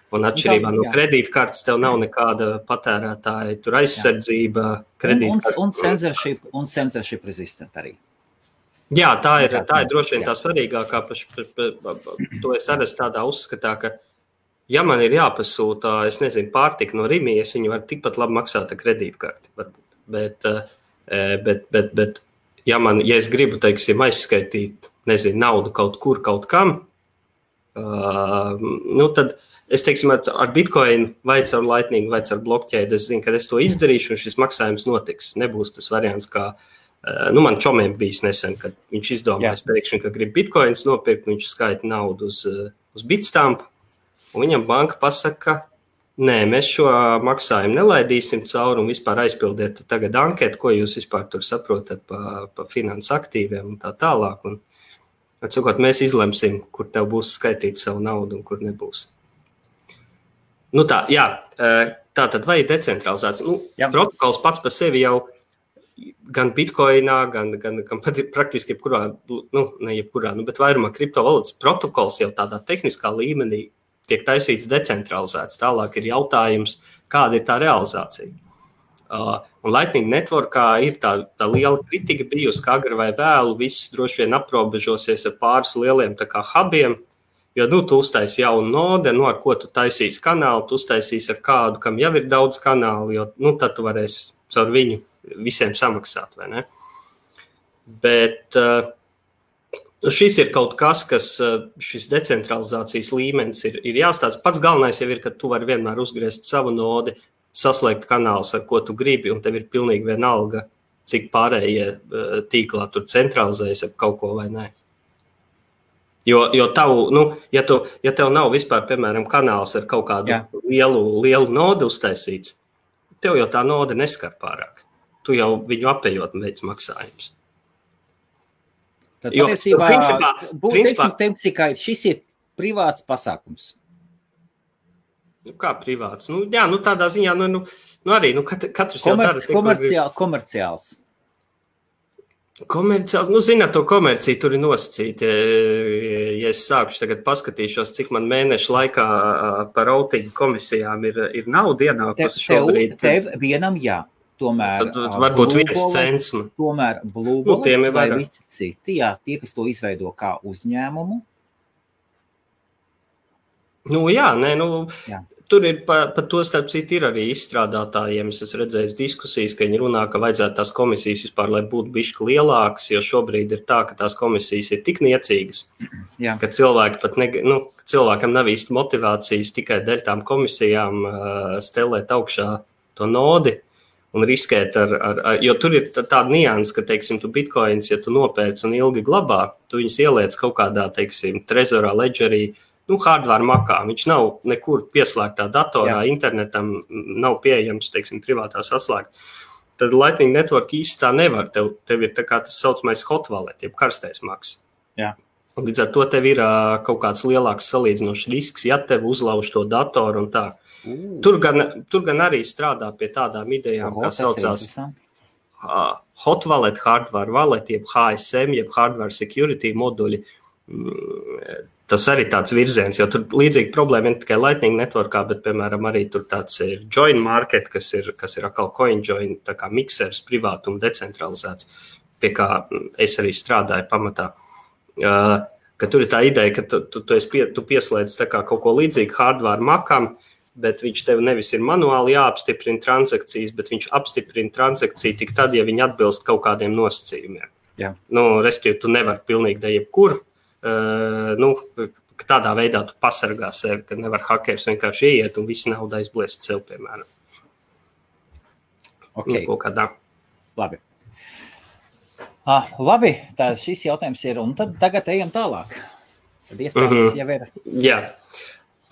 Un atšķirībā no kredītkartes tev nav nekāda patērētāja, tur aizsardzība, kredītkartes. Un censorship resistant arī. Jā, tā ir droši vien tā svarīgākā. To es arī tādā uzskatā, ka ja man ir jāpasūta, es nezinu, pārtika no Rimijas, viņi var tikpat labi maksāt ar kredītkarti, varbūt. Bet ja es gribu, teiksim, aizskaitīt, nezinu, naudu kaut kur, kaut kam, tad es, teiksim, ar Bitcoin vai caur Lightning vai caur blockchain, es zinu, ka es to izdarīšu un šis maksājums notiks. Nebūs tas variants, kā, man čomiem bijis nesen, kad viņš izdomājas pēkšņi, ka grib Bitcoins nopirkt, viņš skaita naudu uz Bitstamp, un viņam banka pasaka, nē, mēs šo maksājumu nelaidīsim cauri un vispār aizpildiet tagad anketu, ko jūs vispār tur saprotat pa finansu aktīviem un tā tālāk. Un, atsakot, mēs izlemsim, kur tev būs skaitīt savu naudu un kur nebūs. Tātad vai decentralizēts? Protokols pats par sevi jau gan Bitcoinā, gan praktiski jebkurā, ne jebkurā, bet vairumā kriptovalūtas protokols jau tādā tehniskā līmenī tiek taisīts decentralizēts. Tālāk ir jautājums, kāda ir tā realizācija. Un Lightning Networkā ir tā liela kritika bijusi, ka agri vai vēlu viss droši vien aprobežosies ar pāris lieliem tā kā hubiem, jo, tu uztaisi jaunu node, ar ko tu taisīsi kanālu, tu uztaisīsi ar kādu, kam jau ir daudz kanālu, jo, tad tu varēsi caur viņu visiem samaksāt, vai ne? Bet šis ir kaut kas, šis decentralizācijas līmenis ir jāstāsta. Pats galvenais jau ir, ka tu vari vienmēr uzgriezt savu nodi, saslēgt kanālus, ar ko tu gribi, un tev ir pilnīgi vienalga, cik pārējie tīklā tur centralizējas ap kaut ko vai nē. Jo tavu, ja tev nav vispār, piemēram, kanāls ar kaut kādu lielu nodu uztaisīts, tev jau tā node neskar pārāk. Tu jau viņu apējot veids maksājums. Tad patiesībā, principā, šis ir privāts pasākums. Kā privāts? Tādā ziņā, arī, katrs jau dara. Komerciāls. Komerciāls, zināt, to komerciju tur ir nosacīta. Ja es sākuši tagad paskatīšos, cik man mēnešu laikā par routingu komisijām ir nauda ienākusi šobrīd. Tev vienam jā. Tomēr varbūt 1 cents. Tomēr Blue Bullets vai visi citi, tie, kas to izveido kā uzņēmumu. Tur ir par to starp citu ir arī izstrādātājiem. Es esmu redzējis diskusijas, ka viņi runā, ka vajadzētu tās komisijas vispār, lai būtu bišķi lielākas, jo šobrīd ir tā, ka tās komisijas ir tik niecīgas, ka cilvēki pat cilvēkam nav īsti motivācijas tikai dēļ tām komisijām stelēt augšā to nodi un riskēt jo tur ir tāda nianse, ka, teiksim, tu bitcoins, ja tu nopērc un ilgi glabā, tu viņus ieliec kaut kādā, teiksim, trezorā, ledgerī, hardware makā. Viņš nav nekur pieslēgtā datorā, internetam nav pieejams, teiksim, privātā saslēgt. Tad Lightning Network īsti tā nevar. Tev ir tā kā tas saucamais hot wallet, jeb karstais maks. Un līdz ar to tev ir kaut kāds lielāks salīdzinošs risks, ja tev uzlauž to datoru un tā. Tur gan arī strādā pie tādām idejām, kā saucās hot wallet, hardware wallet, jeb HSM, jeb hardware security moduļi. Tas arī tāds virziens, jo tur līdzīgi problēma ir tikai Lightning Networkā, bet, piemēram, arī tur tāds ir Join Market, kas ir atkal CoinJoin, tā kā miksers privātuma decentralizēts, pie kā es arī strādāju pamatā. Ka tur ir tā ideja, ka tu pieslēdz tā kā kaut ko līdzīgu hardware makam, bet viņš tev nevis ir manuāli jāapstiprina transakcijas, bet viņš apstiprina transakciju tik tad, ja viņi atbilst kaut kādiem nosacījumiem. Respektīvi, tu nevari pilnīgi da jebkur, tādā veidā tu pasargā sevi, ka nevar hakers vienkārši ieiet un visu naudu aizbliest sev, piemēram. Kaut kādā. Labi. Labi, tā šis jautājums ir, un tad tagad ejam tālāk. Tad iespējams jau ir. Jā.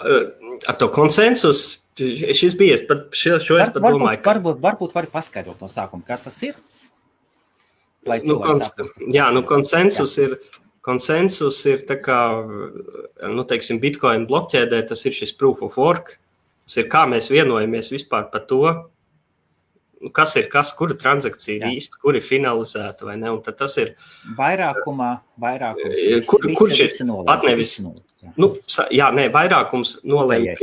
Ar to konsensus, šis bija, šo es pat domāju, ka... Varbūt vari paskaidrot no sākuma, kas tas ir? Konsensus ir tā kā, teiksim, Bitcoin blokķēdē, tas ir šis proof of work. Tas ir, kā mēs vienojamies vispār par to, kas ir kas, kura transakcija ir īsta, kur ir finalizēta vai ne, un tad tas ir... Vairākums. Kurš ir pat nevis... vairākums nolēma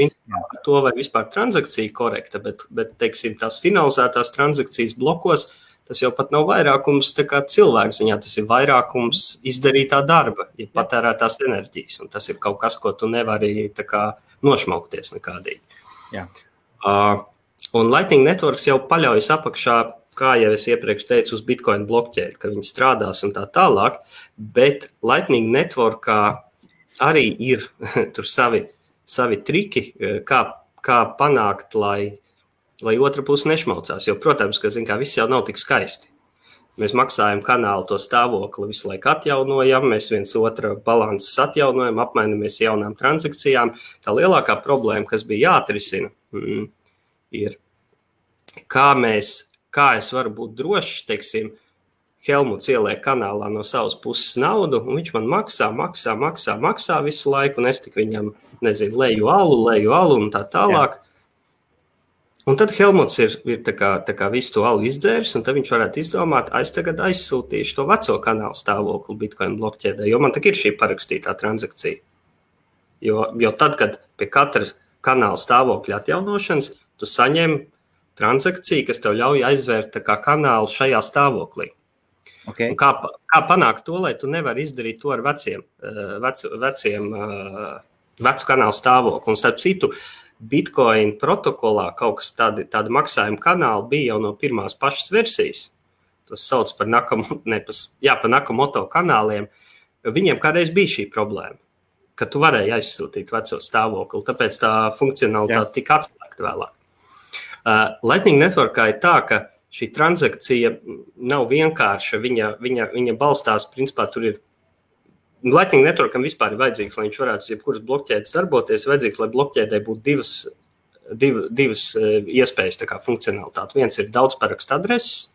to, vai vispār transakcija korekta, bet, teiksim, tās finalizētās transakcijas blokos, tas jau pat nav vairākums tā kā cilvēku ziņā, tas ir vairākums izdarītā darba, ja patērētās enerģijas, un tas ir kaut kas, ko tu nevari tā kā nošmaukties nekādīgi. Un Lightning Networks jau paļaujas apakšā, kā jau es iepriekš teicu, uz Bitcoin blokķēdi, ka viņi strādās un tā tālāk, bet Lightning Networkā arī ir tur savi triki, kā panākt, lai otra puse nešmaucās. Jo, protams, ka viss jau nav tik skaisti. Mēs maksājam kanālu to stāvokli, visu laiku atjaunojam, mēs viens otra balanses atjaunojam, apmainamies jaunām transakcijām. Tā lielākā problēma, kas bija jāatrisina, ir, kā es varu būt drošs, teiksim, Helmuts ieliek kanālā no savas puses naudu, un viņš man maksā visu laiku, un es tik viņam, leju alu un tā tālāk. Un tad Helmuts ir tā kā visu to alu izdzēris, un tad viņš varētu izdomāt, es tagad aizsūtīšu to veco kanālu stāvokli Bitcoin blokķēdē, jo man tak ir šī parakstītā transakcija. Jo tad, kad pie katras kanāla stāvokļa atjaunošanas, tu saņem transakciju, kas tev ļauj aizvērt tā kā kanālu šajā stāvoklī. Okay. Kā panākt to, lai tu nevari izdarīt to ar vecu kanālu stāvokli? Un starp citu, Bitcoin protokolā kaut kas tādi maksājuma kanāli bija jau no pirmās pašas versijas. Tas sauc par Nakamoto kanāliem. Viņiem kādreiz bija šī problēma, ka tu varēji aizsūtīt veco stāvokli, tāpēc tā funkcionalitāte tika atslēgta vēlāk. Lightning Networkā ir tā, ka šī transakcija nav vienkārša, viņa balstās, principā tur ir Lightning Networkam vispār ir vajadzīgs, lai viņš varētu jebkuras blokķēdes darboties, vajadzīgs, lai blokķēdē būtu divas iespējas, tā kā funkcionalitāte. Viens ir daudz parakstu adreses,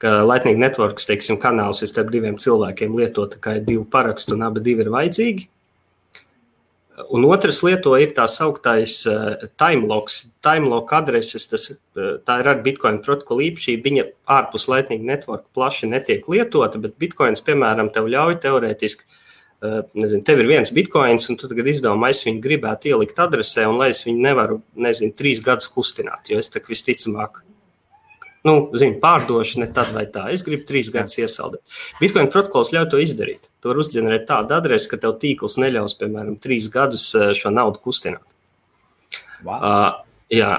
ka Lightning Networks, teiksim, kanāls ir starp diviem cilvēkiem lietot, kā ir 2 parakstu un abi ir vajadzīgi. Un otrs lieto ir tā sauktais timelocks. Timelock adreses, tā ir ar Bitcoin protokolu īpašība, viņa ārpus Lightning Network plaši netiek lietota, bet Bitcoins, piemēram, tev ļauj teorētiski, tev ir viens Bitcoins, un tu tagad izdomā, es viņu gribētu ielikt adresē, un lai es viņu nevaru, 3 gadus kustināt, jo es tak visticamāk, pārdošu ne tad vai tā. Es gribu 3 gadus iesaldēt. Bitcoin protokols ļauj to izdarīt. Tu var uzģenerēt tādu adresi, ka tev tīkls neļaus, piemēram, 3 gadus šo naudu kustināt. Wow.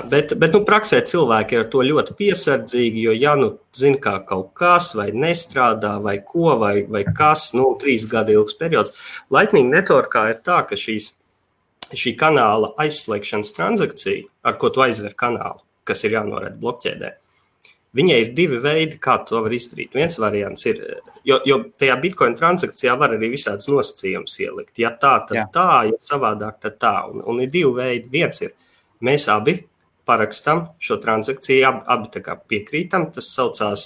Bet praksē cilvēki ir ar to ļoti piesardzīgi, jo zina, kā kaut kas vai nestrādā, vai ko, vai kas, 3 gadu ilgs periods. Lightning Networkā ir tā, ka šī kanāla aizslēgšanas transakcija, ar ko tu aizver kanālu, kas ir jānoraida blokķēdē, viņai ir 2 veidi, kā to var izdarīt. Viens variants ir, jo tajā Bitcoin transakcijā var arī visādas nosacījumus ielikt. Ja tā, tad tā, ja savādāk, tad tā. Un ir 2 veidi. Viens ir, mēs abi parakstam šo transakciju, abi tā kā piekrītam. Tas saucās,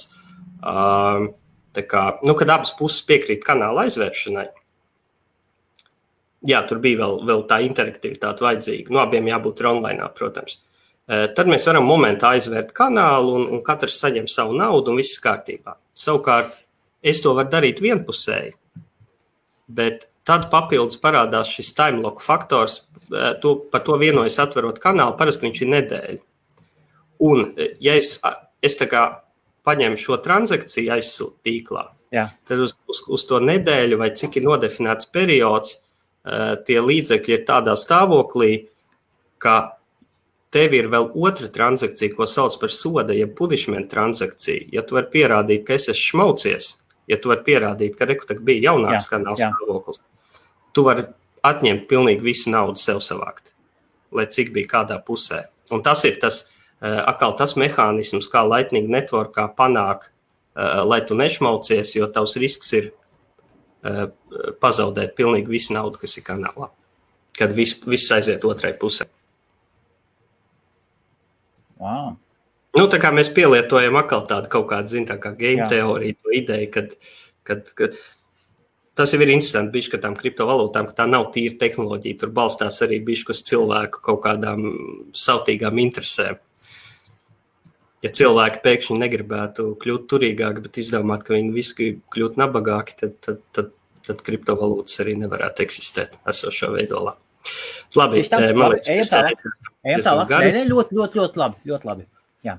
kad abas puses piekrīt kanāla aizvēršanai. Jā, tur bija vēl tā interaktivitāte vajadzīga. Abiem jābūt online, protams. Tad mēs varam momentā aizvērt kanālu un katrs saņem savu naudu un viss kārtībā. Savukārt, es to varu darīt vienpusēji, bet tad papildus parādās šis timelock faktors, par to vienojas atverot kanālu, parasti viņš ir nedēļa. Un, ja es tā kā paņemu šo transakciju aizsūt tīklā, tad uz to nedēļu vai cik ir nodefinēts periods, tie līdzekļi ir tādā stāvoklī, ka tev ir vēl otra transakcija, ko sauc par soda, ja punishment transakcija. Ja tu vari pierādīt, ka es esmu šmaucies, ja tu vari pierādīt, ka reku bija jaunāks kanāls stāvoklis, tu vari atņemt pilnīgi visu naudu sev savākt, lai cik bija kādā pusē. Un tas ir tas mehānisms, kā Lightning Networkā panāk, lai tu nešmaucies, jo tavs risks ir pazaudēt pilnīgi visu naudu, kas ir kanālā, kad viss aiziet otrai pusē. Wow. Tā kā mēs pielietojam atkal tādu kaut kādu, tā kā game teoriju, to ideju, kad tas jau ir interesanti bišķi, ka tām kriptovalūtām, ka tā nav tīra tehnoloģija, tur balstās arī bišķi uz cilvēku kaut kādām sautīgām interesēm. Ja cilvēki pēkšņi negribētu kļūt turīgāki, bet izdomāt, ka viņi visi grib kļūt nabagāki, tad kriptovalūtas arī nevarētu eksistēt esošā veidolā. Labi, man liekas, ejam tālāk. Ļoti labi. Jā.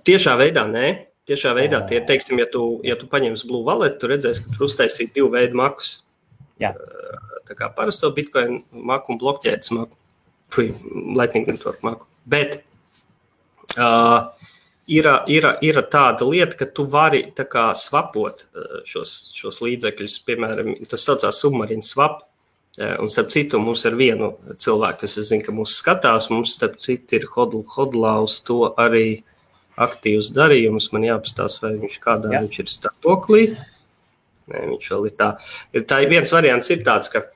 Tiešā veidā, nē. Tiešā veidā, teiksim, ja tu paņemsi Blue Wallet, tu redzēsi, ka tur uztaisīt 2 veidu makus. Jā. Tā kā parasto Bitcoin maku un blokķēdes maku. Lightning Network maku. Bet ir tāda lieta, ka tu vari tā kā swapot šos līdzekļus. Piemēram, tas saucās submarine swap. Un starp citu, mums ar vienu cilvēku, kas es zinu, ka mūs skatās, mums starp citu ir hodlaus to arī aktīvs darījums. Man jāpastās, vai viņš viņš ir stāvoklī. Nē, viņš vēl ir tā. Tā viens variants ir tāds, ka,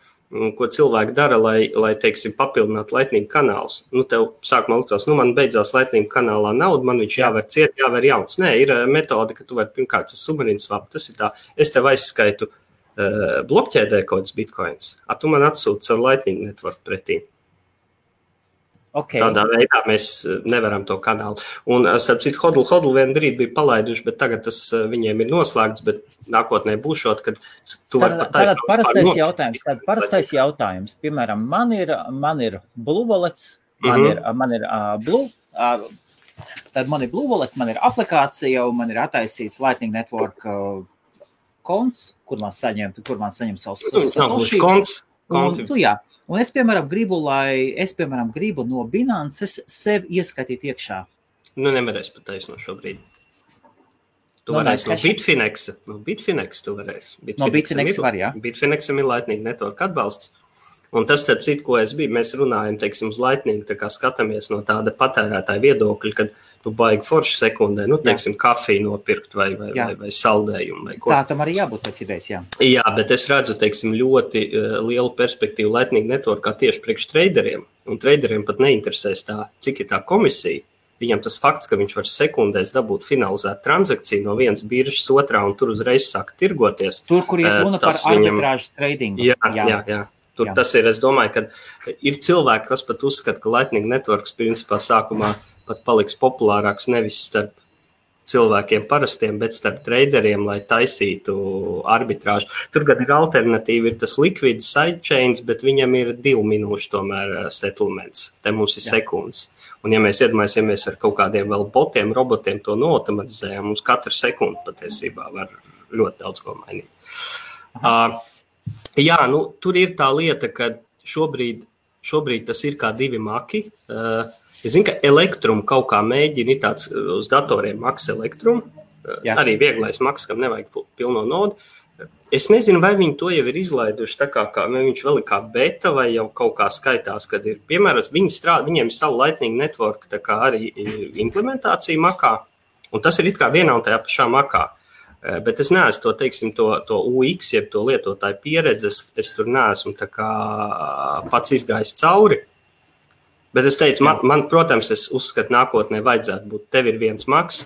ko cilvēki dara, lai teiksim, papildinātu Lightning kanālus. Tev sākumā liktos, man beidzās Lightning kanālā nauda, man viņš jāver ciet, jāver jauns. Nē, ir metode, ka tu vari pirmkārt tas submarine swap, tas ir tā, es tev aizskaitu blokķēdē kaut kāds bitcoins, tu man atsūti savu Lightning Network pretī. Okay. Tādā veidā mēs nevaram to kanālu. Un, starp citu, Hodl vienu brīdi bija palaiduši, bet tagad tas viņiem ir noslēgts, bet nākotnē būšot, kad tu vari pat Tātad parastais jautājums. Piemēram, man ir Blue Wallets, man ir Blue, tad man ir Blue Wallet, man ir aplikācija, un man ir attaisīts Lightning Network konts, kur man saņem savus konts. Un es, piemēram, gribu no Binances sev ieskatīt iekšā. Nu, nevarēs pat taisno šobrīd. Tu varēsi no Bitfinex tu varēsi. No Bitfinex var, jā. Bitfinexam ir Lightning Network atbalsts. Un tas, starp citu, ko mēs runājam, teiksim, uz Lightning, tā kā skatāmies no tāda patērētāja viedokļa, kad tu baigi forši sekundē, teiksim, kafiju nopirkt vai saldējumu vai ko. Tā tam arī jābūt pēc idejas, jā. Jā, bet es redzu, teiksim, ļoti lielu perspektīvu Lightning Networkā tieši priekš traderiem. Un traderiem pat neinteresēs cik ir tā komisija. Viņam tas fakts, ka viņš var sekundēs dabūt finalizēt transakciju no vienas biržas otrā un tur uzreiz sāk tirgoties. Tur, kur ir runa par arbitrāžas tradingu. Jā. Tur tas ir, es domāju, ka ir cilvēki, kas pat uzskata, ka Lightning Networks principā sākumā pat paliks populārāks nevis starp cilvēkiem parastiem, bet starp traderiem, lai taisītu arbitrāžu. Tur gan ir alternatīva, ir tas liquid sidechains, bet viņam ir 2 minūšu tomēr settlements. Te mums ir sekundes. Un ja mēs iedomājamies ar kaut kādiem vēl botiem, robotiem to noautomatizējām, mums katru sekundi patiesībā var ļoti daudz ko mainīt. Jā, tur ir tā lieta, ka šobrīd tas ir kā 2 maki. Es zinu, ka elektrumu kaut kā mēģina, ir tāds uz datoriem maks elektrumu, arī vieglais maks, kam nevajag pilno nodu. Es nezinu, vai viņi to jau ir izlaiduši, tā kā viņš vēl ir kā beta vai jau kaut kā skaitās, kad ir piemērots, viņiem ir savu Lightning Network, tā kā arī implementācija makā, un tas ir it kā vienā un tajā pašā makā. Bet es neesmu to, teiksim, to UX, jeb to lietotāju pieredzes, es tur neesmu tā kā pats izgājis cauri. Bet es teicu, man, protams, es uzskatu nākotnē vajadzētu būt, tev ir viens maks,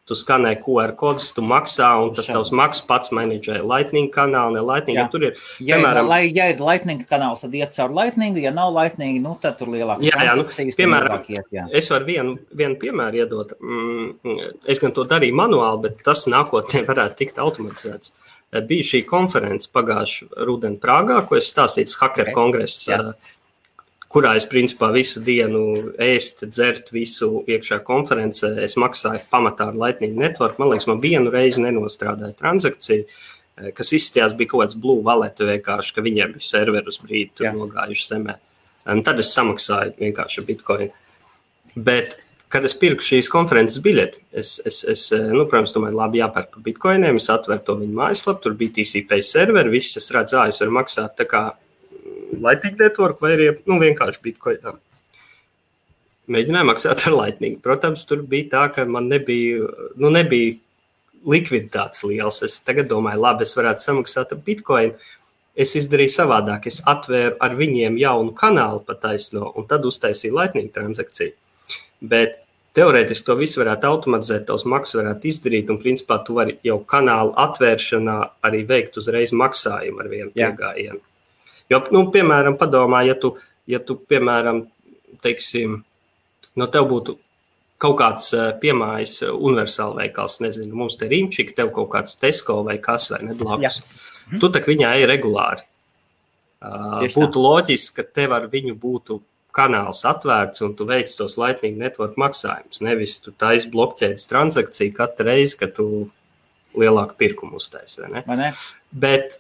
tu skanē QR kodus, tu maksā, un tas tavs maks pats menedžē Lightning kanālu, ne Lightning, ja tur ir, piemēram... Ja ir Lightning kanāls, tad iet caur Lightning, ja nav Lightning, tad tur lielākas transakcijas. Piemēram, es varu vienu piemēru iedot. Es gan to darīju manuāli, bet tas nākotnē varētu tikt automatizēts. Bija šī konference pagājuši rudeni Prāgā, ko es stāstīju, Hacker kongress, kurā es principā visu dienu ēst, dzert visu iekšā konferencē. Es maksāju pamatā ar Lightning Network. Man liekas, man vienu reizi nenostrādāja transakciju, kas izstījās bija kaut kāds Blue Wallet vienkārši, ka viņiem bija serveri uz brīdi tur nogājuši zemē. Un tad es samaksāju vienkārši Bitcoin. Bet, kad es pirku šīs konferences biļeti, es protams, domāju, labi jāpērk par Bitcoiniem, es atveru to viņu mājaslapu, tur bija TCP serveri, viss es redzu, es varu maksāt tā kā Lightning Network vai arī vienkārši Bitcoinā. Mēģināju maksāt ar Lightning. Protams, tur bija tā, ka man nebija likviditātes liels. Es tagad domāju, labi, es varētu samaksāt ar Bitcoin. Es izdarīju savādāk. Es atvēru ar viņiem jaunu kanālu pataisno un tad uztaisīju Lightning transakciju. Bet teorētiski to visu varētu automatizēt, tavs maksas varētu izdarīt un principā tu vari jau kanālu atvēršanā arī veikt uzreiz maksājumu ar vienu piegājienu. Jo, piemēram, padomā, ja tu piemēram, teiksim, tev būtu kaut kāds piemājas universāla veikals, nezinu, mums te Rimčika, tev kaut kāds Tesco vai kas vai neblakus. Tu tak viņā ir regulāri. Būtu loģiski, ka tev ar viņu būtu kanāls atvērts un tu veic tos Lightning Network maksājumus. Nevis tu taisi blokķēdes transakciju katru reizi, kad tu lielāku pirkumu uztaisi, vai ne? Vai ne? Bet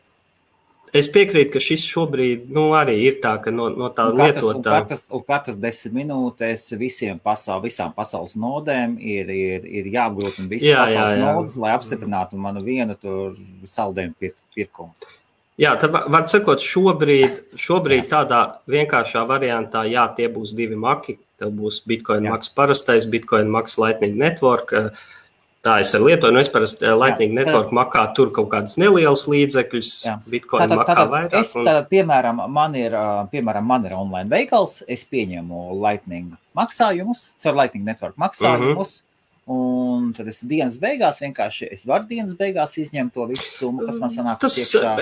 es piekrītu, ka šis šobrīd arī ir tā, ka no tā lietotā... Un katras 10 minūtēs visām pasaules nodēm ir jāapgrūtina visas pasaules nodes, lai apstiprinātu manu vienu tur saldējumu pirkumu. Jā, tad var sakot, šobrīd tādā vienkāršā variantā, tie būs 2 maki. Tev būs Bitcoin maks parastais, Bitcoin maks Lightning Network. Tā es ar lietoju, es parasti Lightning Network makā tur kaut kādas nelielas līdzekļus, Bitcoin makā vairāk. Piemēram, man ir online veikals, es pieņemu Lightning maksājumus, caur Lightning Network maksājumus, un tad es dienas beigās izņemt to visu summu, kas man sanāk iekšā,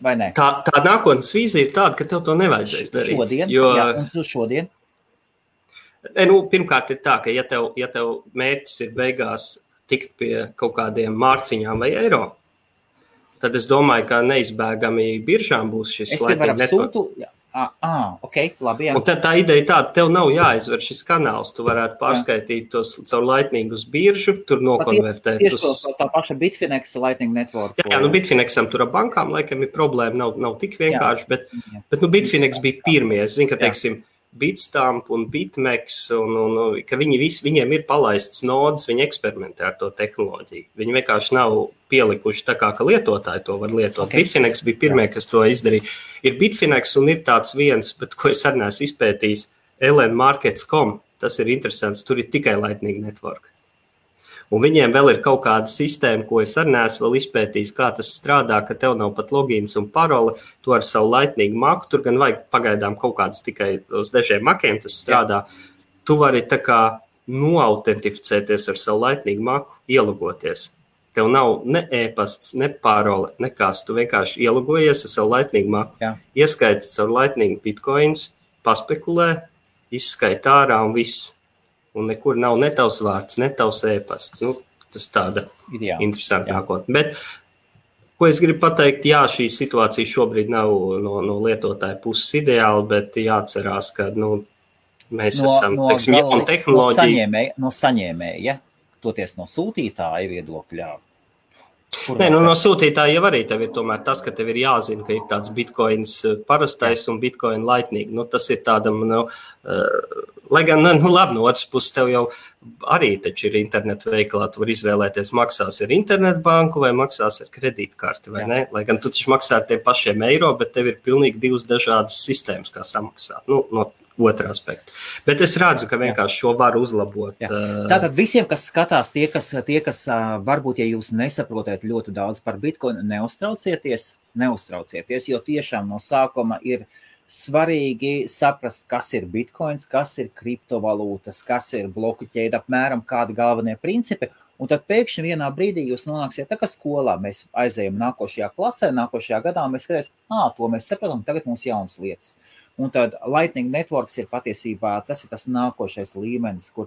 vai ne? Tā nākotnes vīzija ir tāda, ka tev to nevajadzēs darīt. Un šodien? Pirmkārt ir tā, ka ja tev mērķis ir beigās tikt pie kaut kādiem mārciņām vai eiro, tad es domāju, ka neizbēgami biržām būs šis Lightning Network. Labi, jā. Un tad tā ideja tāda, tev nav jāizver šis kanāls, tu varētu pārskaitīt tos caur Lightning uz biržu, tur nokonvertēt. Tieši tā paša Bitfinex Lightning Network. Jā, Bitfinexam tur ar bankām laikam ir problēma, nav tik vienkārši, bet Bitfinex bija pirmie. Es zinu, ka, teiksim, Bitstamp un Bitmex, un ka viņiem ir palaists nodas, viņi eksperimentē ar to tehnoloģiju. Viņi vienkārši nav pielikuši tā kā, ka lietotāji to var lietot. Bitfinex bija pirmie, kas to izdarīja. Ir Bitfinex un ir tāds viens, bet ko es arī neesmu izpētījis, lnmarkets.com, tas ir interesants, tur ir tikai Lightning Network. Un viņiem vēl ir kaut kāda sistēma, ko es arī neesmu vēl izpētījis, kā tas strādā, ka tev nav pat logins un parole, tu ar savu Lightning maku, tur gan vajag pagaidām kaut kādas tikai uz dažiem makiem tas strādā. Tu vari tā kā noautentificēties ar savu Lightning maku, ielogoties. Tev nav ne e-pasts, ne parole, nekas. Tu vienkārši ielogojies ar savu Lightning maku, ieskaits caur Lightning bitcoins, paspekulē, izskait ārā un viss. Un nekur nav ne tavs vārds, ne tavs e-pasts. Tas tāda interesanta nākotne. Bet, ko es gribu pateikt, šī situācija šobrīd nav no lietotāja puses ideāla, bet jāatcerās, ka mēs esam jauna tehnoloģija. No saņēmēja, toties no sūtītāja viedokļā. No sūtītāja jau arī tev ir tomēr tas, ka tev ir jāzina, ka ir tāds bitcoins parastais un bitcoin lightning. Tas ir tādam, lai gan, labi, no otras puses tev jau arī taču ir internetu veikalā, tu var izvēlēties, maksās ar internetbanku vai maksās ar kredītkarti, vai ne? Lai gan tu taču maksā ar tiem pašiem eiro, bet tev ir pilnīgi divas dažādas sistēmas, kā samaksāt. No otra aspekta. Bet es redzu, ka vienkārši šo var uzlabot. Tātad visiem, kas skatās, tie, kas varbūt, ja jūs nesaprotat ļoti daudz par Bitcoin, neuztraucieties, jo tiešām no sākuma ir svarīgi saprast, kas ir Bitcoins, kas ir kriptovalūtas, kas ir bloku ķēde, apmēram kādi galvenie principi, un tad pēkšņi vienā brīdī jūs nonāksiet tā kā skolā, mēs aizējam nākošajā klasē, nākošajā gadā, mēs skatāmies, to mēs sapratam, tagad mums jaunas lietas. Un tad Lightning Networks ir patiesībā, tas ir tas nākošais līmenis, kur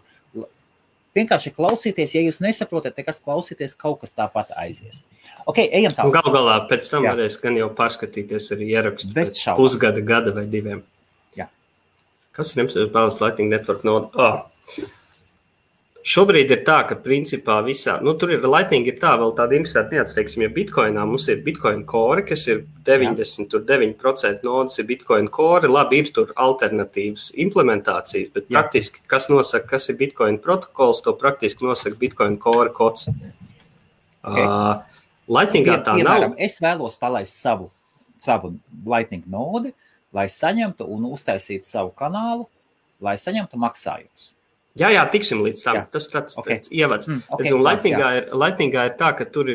vienkārši klausīties, ja jūs nesaprotat, kas klausīties, kaut kas tāpat aizies. Ejam tālāk. Galu galā pēc tam varēs gan jau pārskatīties arī ierakstu pēc pusgada, gada vai diviem. Jā. Kas ir jums Lightning Network noda? Šobrīd ir tā, ka principā visā, tur ir Lightning ir tā, vēl tāda interesanta nianse, teiksim, ja Bitcoinā mums ir Bitcoin Core, kas ir 99% nodas ir Bitcoin Core, labi, ir tur alternatīvas implementācijas, bet praktiski, kas nosaka, kas ir Bitcoin protokols, to praktiski nosaka Bitcoin Core kods. Lightningā tā nav. Es vēlos palaist savu Lightning nodi, lai saņemtu un uztaisītu savu kanālu, lai saņemtu maksājumus. Jā, tiksim līdz tam. Tas tāds ievads. Lightningā ir tā, ka tur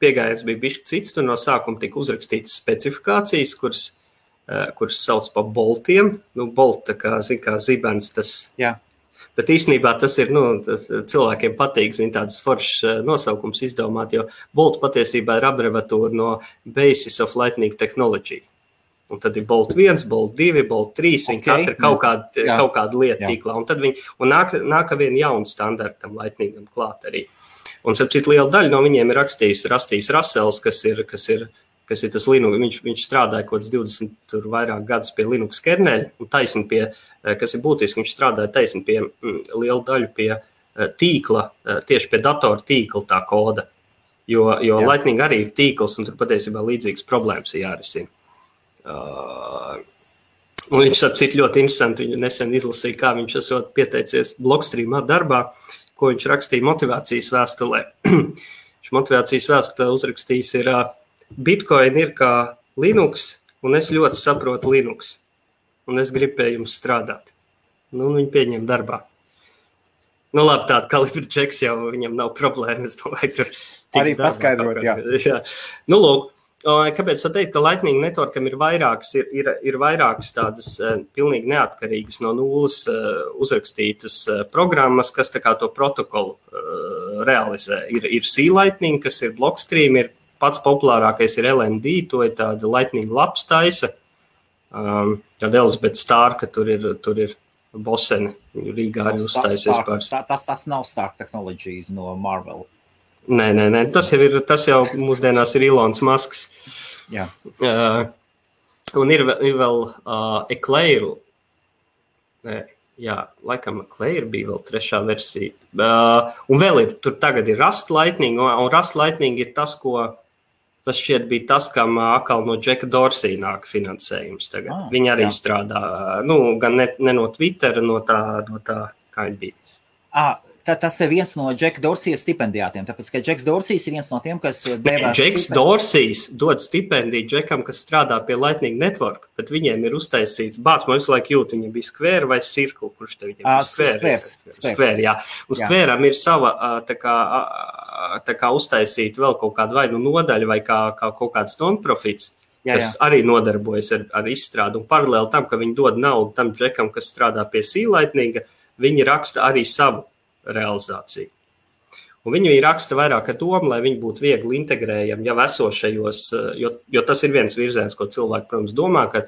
piegājiens bija bišķi cits, tur no sākuma tika uzrakstītas specifikācijas, kuras sauc pa boltiem. Bolt, tā kā zibens tas. Jā. Bet īstenībā tas ir, tas cilvēkiem patīk, tādas foršas nosaukums izdomāt, jo bolt patiesībā ir abreviatūra no Basis of Lightning Technology. Un tad ir Bolt 1, Bolt 2, Bolt 3, viņi katra kaut kādu lietu tīklā. Un tad nāk vien jaunu standartam Lightningam klāt arī. Un sapcīt liela daļa no viņiem ir rakstījis Russells, kas ir tas Linux. Viņš strādāja kaut kāds 20 tur vairāk gadus pie Linux kerneļa un taisni pie, kas ir būtiski, viņš strādāja taisni pie lielu daļu pie tīkla, tieši pie datora tīkla tā koda. Jo Lightning arī ir tīkls un tur patiesībā līdzīgas problēmas ir jārisina. Un viņš sapcīt ļoti interesanti, viņu nesen izlasīja, kā viņš esot pieteicies Blockstreamā darbā, ko viņš rakstīja motivācijas vēstulē. Viņš motivācijas vēstulē uzrakstījis ir Bitcoin ir kā Linux, un es ļoti saprotu Linux, un es gribu pie jums strādāt. Viņu pieņem darbā. Labi, tāda kalibra čeks jau viņam nav problēma, es domāju, tur arī paskaidrot, jā. Lūk. Kāpēc var teikt, ka Lightning Networkam ir vairākas tādas pilnīgi neatkarīgas no nulles uzrakstītas programmas, kas tā kā to protokolu realizē. Ir C-Lightning, kas ir Blockstream, ir pats populārākais ir LND, to ir tāda Lightning labs taisa. Tāda Elizabeth Starka tur ir Boseni Rīgā arī uzstājusies par. Tas nav Stark Technologies no Marvel. Nē. Tas jau mūsdienās ir Ilons Masks. Jā. Un ir vēl Eclair. Jā, laikam Eclair bija vēl 3. versija. Un vēl tur tagad ir Rust Lightning, un Rust Lightning ir tas, tas šķiet bija tas, kam atkal no Jacka Dorsey nāk finansējums tagad. Viņi arī strādā, gan ne no Twittera, no tā kā ir bijis. Tas ir viens no Jacka Dorsey stipendijātiem, tāpēc, ka Jacks Dorsey ir viens no tiem, kas devās... Jacks Dorsey dod stipendiju Jackam, kas strādā pie Lightning Network, bet viņiem ir uztaisīts, man visu laiku jūt, viņiem bija Square vai Circle, kurš te viņiem bija Square, jā. Un Square'am ir sava, tā kā uztaisīt vēl kaut kādu vai nodaļu vai kā kaut kāds non-profits, kas arī nodarbojas ar izstrādu. Un paralēli tam, ka viņi dod naudu tam Jackam, kas strādā pie C-Lightninga, viņi raksta arī savu realizāciju. Un viņi raksta vairāk ar domu, lai viņi būtu viegli integrējami jau esošajos, jo tas ir viens virziens, ko cilvēki, protams, domā, ka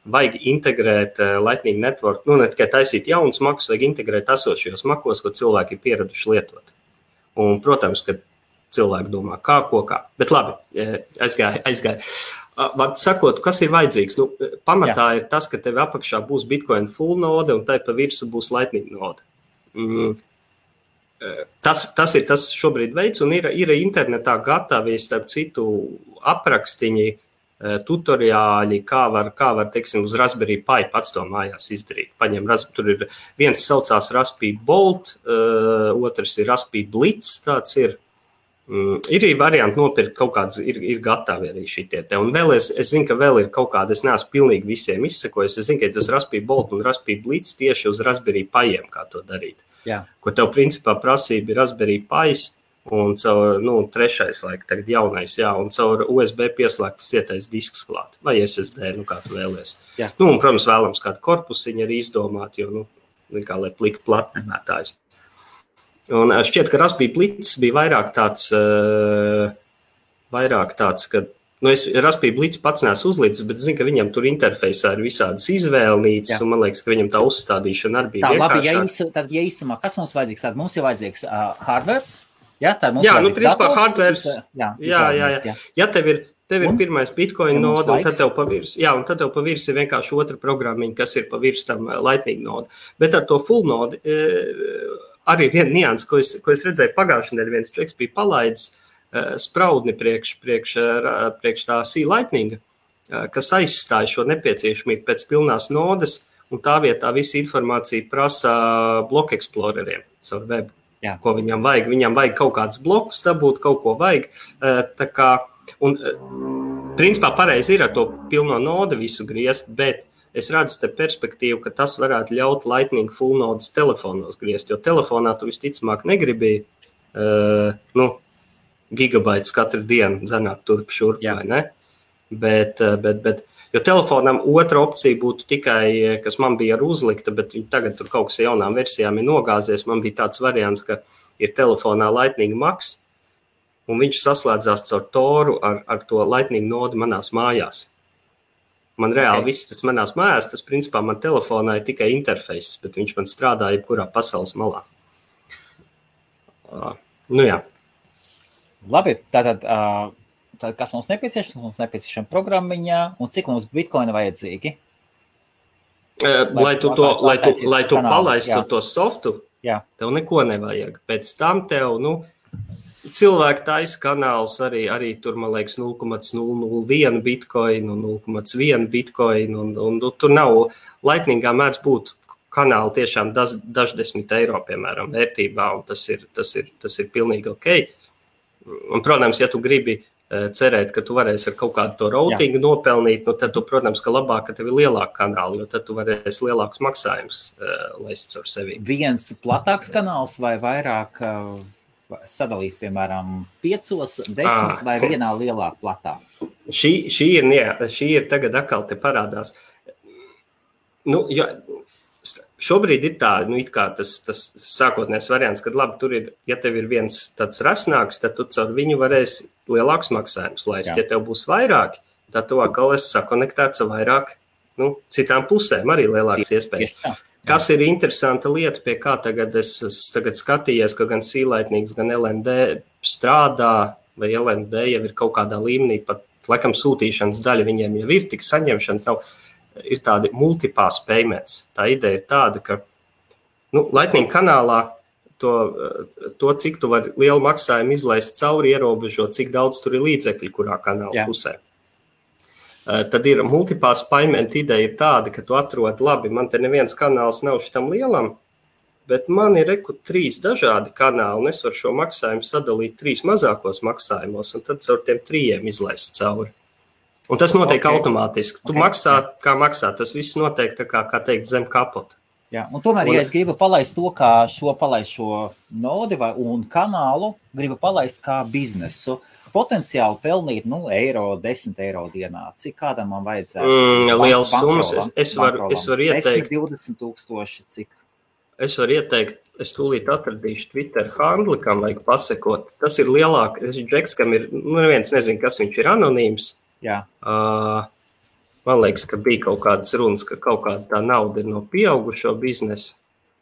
vajag integrēt Lightning Network, ne tikai taisīt jaunas makus, vajag integrēt esošajos makos, ko cilvēki ir pieraduši lietot. Un, protams, ka cilvēki domā, kā. Bet labi, aizgāja. Var sakot, kas ir vajadzīgs? Pamatā ir tas, ka tev apakšā būs Bitcoin full node un tai pa virsu būs Lightning node. Tas ir tas šobrīd veids, un ir internetā gatavi, starp citu, aprakstiņi, tutoriāļi, kā var, teiksim, uz Raspberry Pi pats to mājās izdarīt. Tur ir viens saucās Raspberry Bolt, otrs ir Raspberry Blitz, tāds ir. Ir varianti nopirkt kaut kādas, ir gatavi arī šitie te. Un vēl es zinu, ka vēl ir kaut kāda, es neesmu pilnīgi visiem izsekojis, es zinu, ka tas Raspberry Bolt un Raspberry Blitz tieši uz Raspberry Piem, kā to darīt. Jā. Ko tev principā prasība ir Raspberry Pis un caur, 3. laika, tagad jaunais, un caur USB pieslēgtas cietais disks klāt, vai SSD, kā tu vēlies. Jā. Un, protams, vēlams kādu korpusiņu arī izdomāt, jo, kā lai plika platnemētājs. Un šķiet, ka Raspberry Blitz bija vairāk tāds, ka, Raspberry Blitz pats neesmu uzlīdzis, bet zinu, ka viņam tur interfejsā ir visādas izvēlnīcas, un man liekas, ka viņam tā uzstādīšana arī bija vienkāršāk. Tad, īsumā, kas mums vajadzīgs? Tad mums ir vajadzīgs hardwares, principā hardwares, ja tev ir pirmais Bitcoin node, un tad tev pa virs ir vienkārši otra programmiņa, kas ir pa virs tam Lightning node. Bet ar to full node arī viena nianses, ko es redzēju pagājušajā nedēļā, viens čeks bija palaidis spraudni priekš tā C-Lightninga, kas aizstāja šo nepieciešamību pēc pilnās nodes, un tā vietā visa informācija prasa bloku eksploreriem savu webu. Jā. Ko viņam vajag. Viņam vajag kaut kādus blokus dabūt, kaut ko vajag. Un principā pareizi ir ar to pilno node visu griezt, bet es redzu te perspektīvu, ka tas varētu ļaut Lightning full nodes telefonos griezt, jo telefonā tu visticamāk negribi gigabaitus katru dienu zanāt turp šurp, vai ne? Bet, jo telefonam otra opcija būtu tikai, kas man bija ar uzlikta, bet tagad tur kaut kas jaunām versijām ir nogāzies. Man bija tāds variants, ka ir telefonā Lightning Max, un viņš saslēdzās caur Toru ar to Lightning nodi manās mājās. Man reāli viss tas manās mājās, tas principā man telefonā ir tikai interfejs, bet viņš man strādā jebkurā pasaules malā. Jā. Labi, tātad kas mums nepieciešams? Mums nepieciešama programmiņā, un cik mums bitkoina vajadzīgi? Lai tu palaistu to softu, tev neko nevajag. Pēc tam tev, cilvēki taisa kanāls arī tur, man liekas, 0,001 bitcoin un 0,1 bitcoin, un tur nav, Lightningā mēdz būt kanāli tiešām daždesmit eiro, piemēram, vērtībā, un tas ir pilnīgi ok. Un, protams, ja tu gribi cerēt, ka tu varēsi ar kaut kādu to routingu nopelnīt, tad tu, protams, ka labāk, ka tev ir lielāka kanāla, jo tad tu varēsi lielākus maksājumus laist ar sevi. Viens platāks kanāls vai vairāk sadalīt, piemēram, 5, 10 vai vienā lielā platā? Šī ir tagad atkal te parādās. Šobrīd ir tā, it kā tas sākotnējs variants, kad labi, tur ir, ja tev ir viens tāds rasnāks, tad tu caur viņu varēsi lielākus maksājumus laist. Ja tev būs vairāki, tad tu atkal esi sakonektēts ar vairāk, citām pusēm arī lielākas iespējas. Kas ir interesanta lieta, pie kā tagad es tagad skatījos, ka gan Sīlaitnīgs, gan LND strādā, vai LND jau ir kaut kādā līmenī, pat laikam sūtīšanas daļa viņiem jau ir, tik saņemšanas nav, ir tādi multipass payments. Tā ideja ir tāda, ka Lightning kanālā to, cik tu vari lielu maksājumu izlaist cauri, ierobežo, cik daudz tur ir līdzekļi, kurā kanāla pusē. Tad ir multipass payment ideja ir tāda, ka tu atrod, labi, man te neviens kanāls nav šitam lielam, bet man ir 3 dažādi kanāli, un es varu šo maksājumu sadalīt 3 mazākos maksājumos, un tad caur tiem 3 izlaist cauri. Un tas notiek automātiski. Tu maksā, kā maksā, tas viss notiek tā kā teikt, zem kapota. Jā, un tomēr, ja es gribu palaist to, kā palaist šo nodi un kanālu, gribu palaist kā biznesu, potenciāli pelnīt, eiro, 10 eiro dienā. Cik kādam man vajadzētu? Liels summas. Es varu ieteikt. 10-20 tūkstoši, cik? Es varu ieteikt, es tūlīt atradīšu Twitter handli, kam vajag pasekot. Tas ir lielāk, Džeks, kam ir, neviens nezin, kas viņš ir anonīms. Jā. Man liekas, ka bija kaut kādas runas, ka kaut kāda tā nauda ir no pieaugušo biznesa.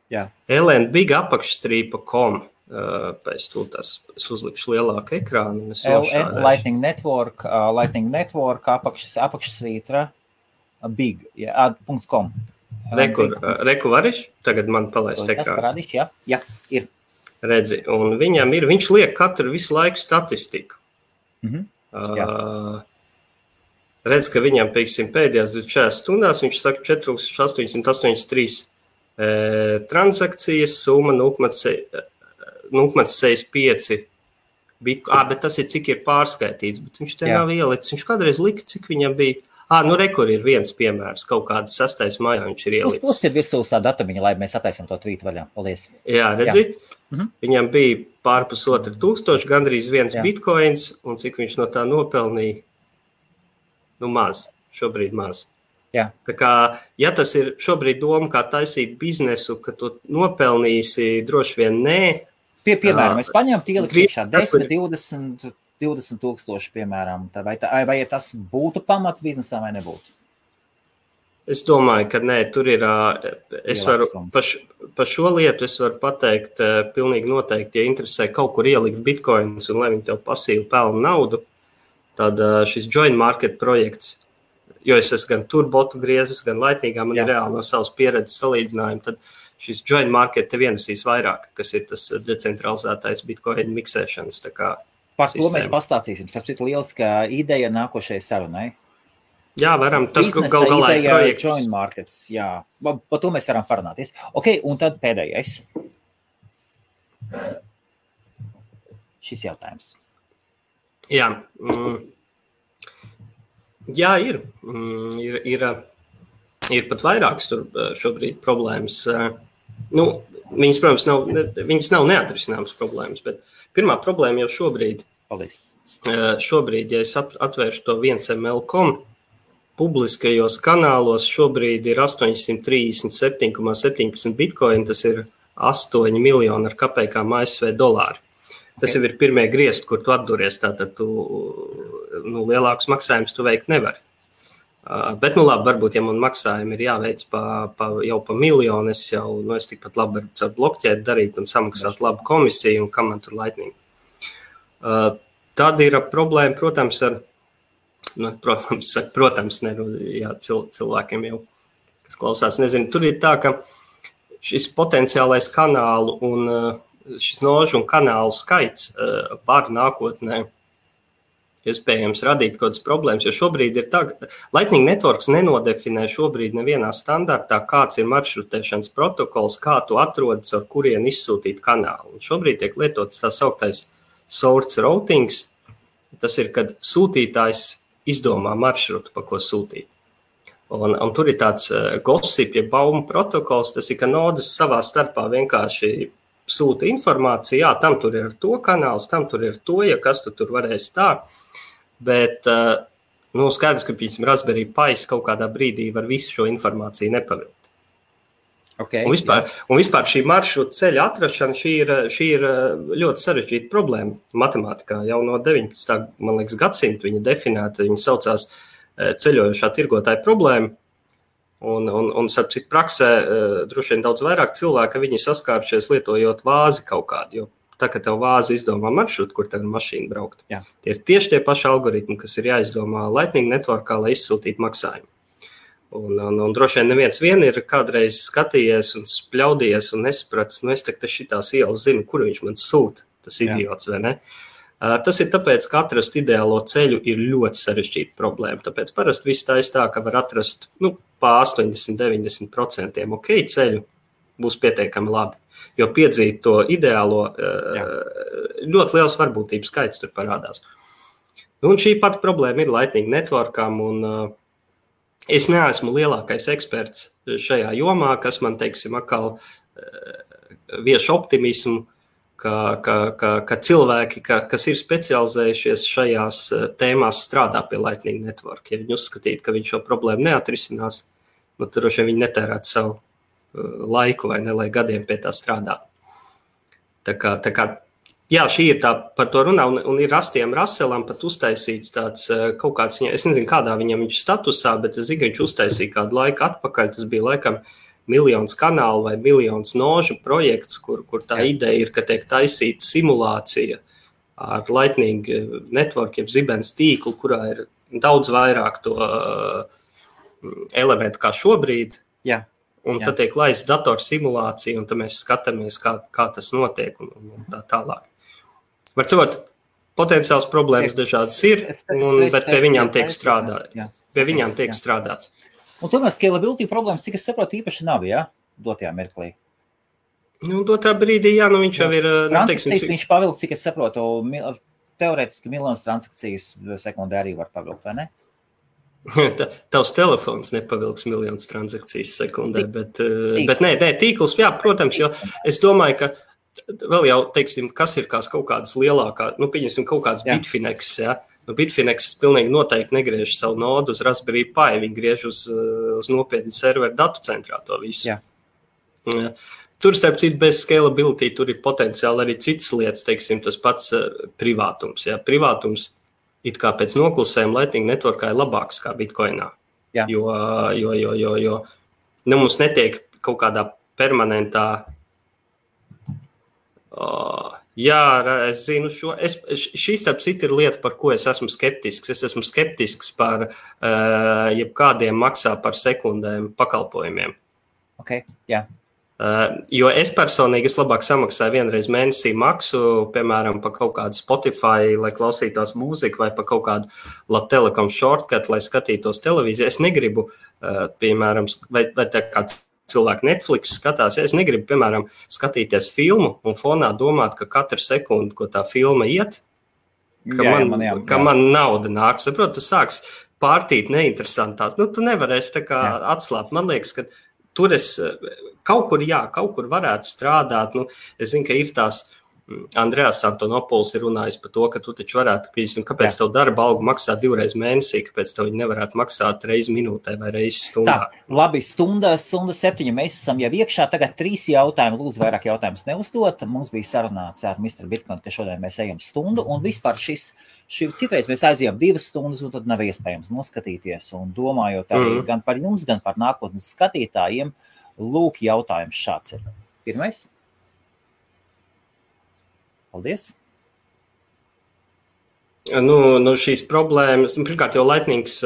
Jā. lnbig_com. Pēc es uzlikšu lielāku ekrānu. Lightning Network apakšsvītra big, .com. Reku variš? Tagad man palaist ekrānu. Parādīšu, jā, ir. Redzi, un viņš liek katru visu laiku statistiku. Redz, ka viņam, pieksim, pēdējās 24 stundās, viņš saka 4883 transakcijas, summa 0,65 bet tas ir cik ir pārskaitīts, bet viņš te nav ielicis. Viņš kādreiz lika, cik viņam bija. Rekur ir viens piemērs, kaut kāds 6. maijā viņš ir ielicis. Uzskatiet virsū uz tā datumiņa, lai mēs attaisam to tvītu vaļā. Paldies. Jā, redzi? Viņam bija pārpus 2,000, gandrīz 1 bitcoins, un cik viņš no tā nopelnīja? Maz. Šobrīd maz. Jā. Tā kā, ja tas ir šobrīd doma, kā taisīt biznesu, ka tu nopelnīsi, droši vien nē. Piemēram, es paņemtu ielikt 10, 20 tūkstoši, piemēram. Vai tas būtu pamats biznesā vai nebūtu? Es domāju, ka nē, tur ir, es varu, par šo lietu es varu pateikt, pilnīgi noteikti, ja interesē kaut kur ielikt bitcoins un lai viņi tev pasīvi pelna naudu, tad šis joint market projekts, jo es esmu gan tur botu griezis, gan Lightningā, man ir reāli no savas pieredzes salīdzinājumi, tad šis joint market te vienasīs vairāk, kas ir tas decentralizētais bitcoin miksēšanas. Par to mēs pastāstīsim. Sapcīt lieliskā ideja nākošajai sarunai. Jā, varam. Tas gal galā ir projekts. Joint markets, jā. Par to mēs varam parunāties. Ok, un tad pēdējais. Šis jautājums. Jā. Jā, ir. Ir pat vairākas tur šobrīd problēmas. Viņas, protams, nav neatrisināmas problēmas, bet pirmā problēma jau šobrīd. Paldies. Šobrīd, ja es atvēršu to 1ml.com, publiskajos kanālos šobrīd ir 837,17 bitcoin, tas ir 8 miljoni ar kapekām ASV dolāri. Tas jau ir pirmie griezti, kur tu atduries, tātad tu lielākus maksājumus tu veikt nevari. Bet, labi, varbūt, ja man maksājumi ir jāveic jau pa miljonu, es tikpat labi varu caur blokķēt darīt un samaksāt labu komisiju, un kam man tur Lightning. Tad ir problēma, protams, cilvēkiem jau, kas klausās, nezinu, tur ir tā, ka šis potenciālais kanālu un šis nožu un kanālu skaits var nākotnē iespējams radīt kaut kādas problēmas, jo šobrīd ir tā, Lightning Networks nenodefinē šobrīd nevienā standartā, kāds ir maršrutēšanas protokols, kā tu atrodas, ar kurien izsūtīt kanālu. Un šobrīd tiek lietots tā sauktais source routings, tas ir, kad sūtītājs izdomā maršrutu, pa ko sūtīt. Un tur ir tāds gossip, ja baumu protokols, tas ir, ka nodas savā starpā vienkārši sūta informāciju, jā, tam tur ir ar to kanāls, tam tur ir to, ja kas tu tur varēs tā, bet skaidrs, ka, piemēram, Raspberry Pi kaut kādā brīdī var visu šo informāciju nepavilkt. Okay, un vispār šī maršruta ceļa atrašana, šī ir ļoti sarežģīta problēma matemātikā. Jau no 19. man liekas, gadsimta viņa definēta, viņa saucās ceļojošā tirgotāja problēma. Un sapcīt, praksē droši vien daudz vairāk cilvēku, viņi saskārušies lietojot vāzi kaut kādu, jo tā, ka tev vāzi izdomā maršrutu, kur tev ir mašīna braukt. Jā. Tie ir tieši tie paši algoritmi, kas ir jāizdomā Lightning Networkā, lai izsūtītu maksājumu. Un droši vien neviens vien ir kādreiz skatījies un spļaudījies un nesapratis, es tagad šitās ielas zinu, kur viņš man sūta, tas idiots, vai ne? Tas ir tāpēc, ka atrast ideālo ceļu ir ļoti sarežģīta problēma. Tāpēc parasti viss tā, ka var atrast pa 80-90% ok ceļu, būs pietiekami labi. Jo piedzīt to ideālo, ļoti liels varbūtības skaits tur parādās. Un šī pati problēma ir Lightning Networkam, un es neesmu lielākais eksperts šajā jomā, kas man, teiksim, atkal vieš optimismu, ka cilvēki, kas ir specializējušies šajās tēmās, strādā pie Lightning Network. Ja viņi uzskatītu, ka viņš šo problēmu neatrisinās, tad droši vien viņi netērētu savu laiku vai ne, lai gadiem pie tā strādāt. Tā kā, jā, šī ir tā par to runā, un ir Rastiem Raselam pat uztaisīts tāds kaut kāds, es nezinu, kādā viņam viņš statusā, bet es zinu, ka viņš uztaisīja kādu laiku atpakaļ, tas bija laikam 1 miljons kanālu vai 1 miljons nožu projekts, kur tā ideja ir, ka tiek taisīta simulācija ar Lightning Network, jeb zibens tīklu, kurā ir daudz vairāk to elementu kā šobrīd. Jā. Un tad tiek laist datorsimulācija, un tad mēs skatāmies, kā tas notiek un tā tālāk. Var cikot, potenciāls problēmas dažādas ir, bet pie viņām tiek strādāts. Un tomēr scalability problēmas, cik es saprotu, īpaši nav, dotajā mirklī? Dotā brīdī, viņš jau ir... Transakcijas viņš pavilk, cik es saprotu, teorētiski miljonas transakcijas sekundē arī var pavilkt, vai ne? Tavs telefons nepavilks miljonus transakcijas sekundē, bet nē, tīkls, jā, protams, jo es domāju, ka vēl jau, teiksim, kas ir kaut kādas lielākā, pieņemsim kaut kāds Bitfinex, Bitfinex pilnīgi noteikti negriež savu nodu uz Raspberry Pi, viņi griež uz nopietnu serveru datu centrā to visu. Jā. Tur, starp citu, bez scalability, tur ir potenciāli arī citas lietas, teiksim, tas pats privātums, privātums it kā pēc noklusējuma Lightning Networkā ir labāks kā Bitcoinā. Jā. Jo mums netiek kaut kādā permanentā... es zinu šo... Šī starp citu ir lieta, par ko es esmu skeptisks. Es esmu skeptisks par jebkādiem maksā par sekundēm pakalpojumiem. Ok, jā. Jo es personīgi labāk samaksāju vienreiz mēnesī maksu, piemēram, par kaut kādu Spotify, lai klausītos mūziku, vai par kaut kādu Latelekom shortcut, lai skatītos televīziju. Es negribu, piemēram, vai tā kā cilvēki Netflix skatās, es negribu, piemēram, skatīties filmu un fonā domāt, ka katru sekundi, ko tā filma iet, ka man nauda nāk. Saprotu, tu sāks pārtīt neinteresantās. Tu nevarēsi tā kā atslāpt. Man liekas, ka tur es kaut kur varētu strādāt. Es zinu, ka ir tās Andrejas Antonopols ir runājis par to, ka tu taču varētu, kāpēc tev darba algu maksā 2 reizes mēnesī, kāpēc tev viņi nevarētu maksāt reizi minūtē vai reizi stundā. Tā, labi, stunda 7, mēs esam jau iekšā, tagad 3 jautājumi, lūdzu vairāk jautājumus neuzdot. Mums bija sarunāts ar Mr. Bitcoin, ka šodien mēs ejam stundu, un vispār citreiz mēs aizjām 2 stundas, un tad nav iespējams noskatīties, un domājot arī gan par jums, gan par nākotnes skatītājiem, lūk, jautājums šāds ir. Pirmais. Paldies. Šīs problēmas, pirmkārt jau Lightnings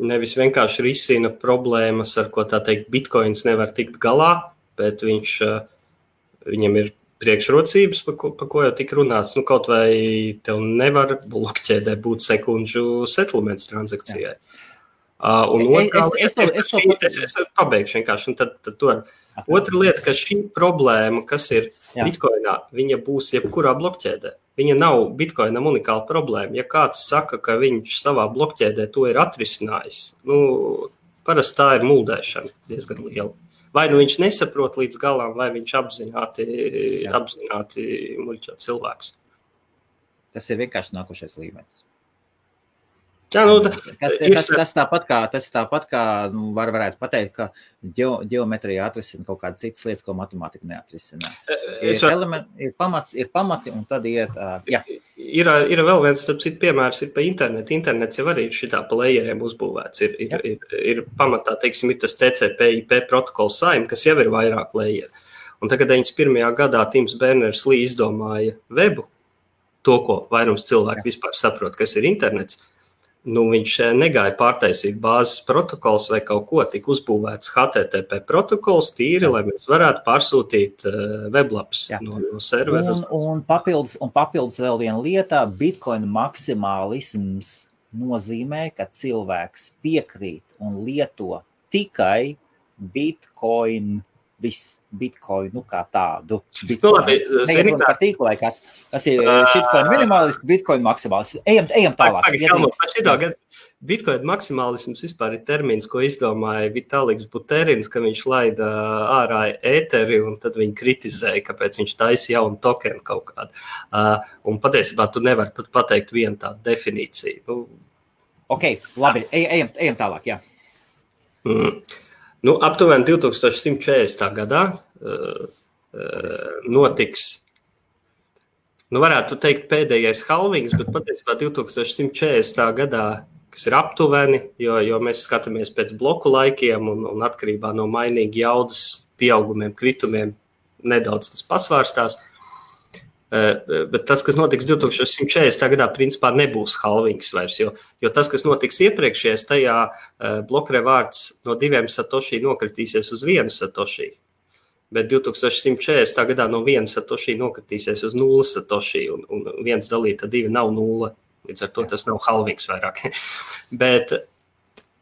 nevis vienkārši risina problēmas, ar ko tā teikt Bitcoins nevar tikt galā, bet viņam ir priekšrocības, pa ko jau tik runāts. Kaut vai tev nevar blokķēdē būt sekundžu settlements transakcijai. Es pabeigšu vienkārši, un tad to ar... Otra lieta, ka šī problēma, kas ir Bitcoinā, viņa būs jebkurā blokķēdē. Viņa nav Bitcoinam unikāla problēma. Ja kāds saka, ka viņš savā blokķēdē to ir atrisinājis, parasti tā ir muldēšana diezgan liela. Vai viņš nesaprot līdz galam, vai viņš apzināti muļķo cilvēkus. Tas ir vienkārši nākošais līmenis. Jā, tas tāpat kā varētu pateikt, ka ģeometrija atrisina kaut kādas citas lietas, ko matemātika neatrisina. Ir pamati, un tad iet... Ir vēl viens, starp citu, piemērs ir pa internetu. Internets jau arī ir šitā pa layeriem uzbūvēts. Ir pamatā, teiksim, ir tas TCP/IP protokols SAIM, kas jau ir vairāk layeri. Un tagad 91. gadā Tims Berners-Lee izdomāja webu, to, ko vairums cilvēku vispār saprot, kas ir internets. Viņš negāja pārtaisīt bāzes protokols vai kaut ko, tika uzbūvēts HTTP protokols tīri, lai mēs varētu pārsūtīt weblaps no servera. Un papildus vēl viena lieta, Bitcoin maksimālisms nozīmē, ka cilvēks piekrīt un lieto tikai Bitcoin, Bitcoinu kā tādu. Nezinu par tīklu vai kas ir shitcoin minimalisti, Bitcoin maksimālisti. Ejam tālāk. Bitcoin maksimālisms vispār ir termins, ko izdomāja Vitaliks Buterins, ka viņš laida ārā ēteri un tad viņi kritizēja, kāpēc viņš taisa jaunu tokenu kaut kādu. Un patiesībā tu nevari pat pateikt vienu tādu definīciju. Ok, labi, ejam tālāk, jā. Aptuveni 2140. gadā notiks, varētu teikt pēdējais halvings, bet patiesībā 2140. gadā, kas ir aptuveni, jo mēs skatāmies pēc bloku laikiem un atkarībā no mainīgi jaudas pieaugumiem, kritumiem, nedaudz tas pasvārstās. Bet tas, kas notiks 2140. gadā, principā nebūs halvings vairs, jo tas, kas notiks iepriekšējais, tajā blokrevārds no 2 satoshi nokritīsies uz 1 satoshi, bet 2140. gadā no 1 satoshi nokritīsies uz 0 satoshi, un 1 dalīta 2 nav 0, līdz ar to tas nav halvings vairāk. Bet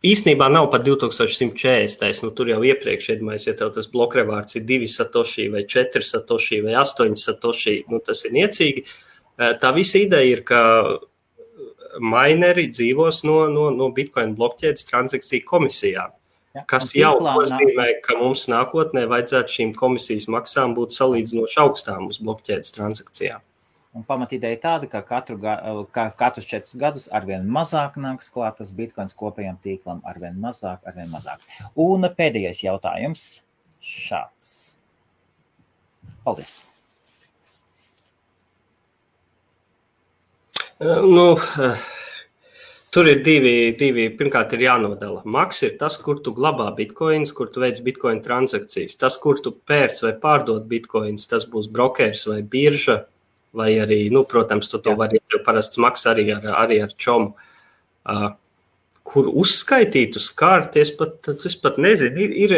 īstenībā nav pat 2140. Tur jau iepriekš, ja tev tas blokrevārds ir 2 satoshi vai 4 satoshi vai 8 satoshi, tas ir niecīgi. Tā visa ideja ir, ka mineri dzīvos no Bitcoin blokķēdes transakciju komisijām, kas jau nozīmē, ka mums nākotnē vajadzētu šīm komisijas maksām būt salīdzinoši augstām uz blokķēdes transakcijām. Un pamatīdeja tāda, ka katrus 4 gadus arvien mazāk nāks klāt tas Bitcoins kopējam tīklam, arvien mazāk. Un pēdējais jautājums šāds. Paldies. Tur ir divi. Pirmkārt ir jānodala. Maks ir tas, kur tu glabā bitcoins, kur tu veic bitcoin transakcijas. Tas, kur tu pērc vai pārdod bitcoins, tas būs brokers vai birža. Vai arī, protams, tu to vari parasts maks arī ar čomu. Kur uzskaitīt uz kārti, es pat nezinu, ir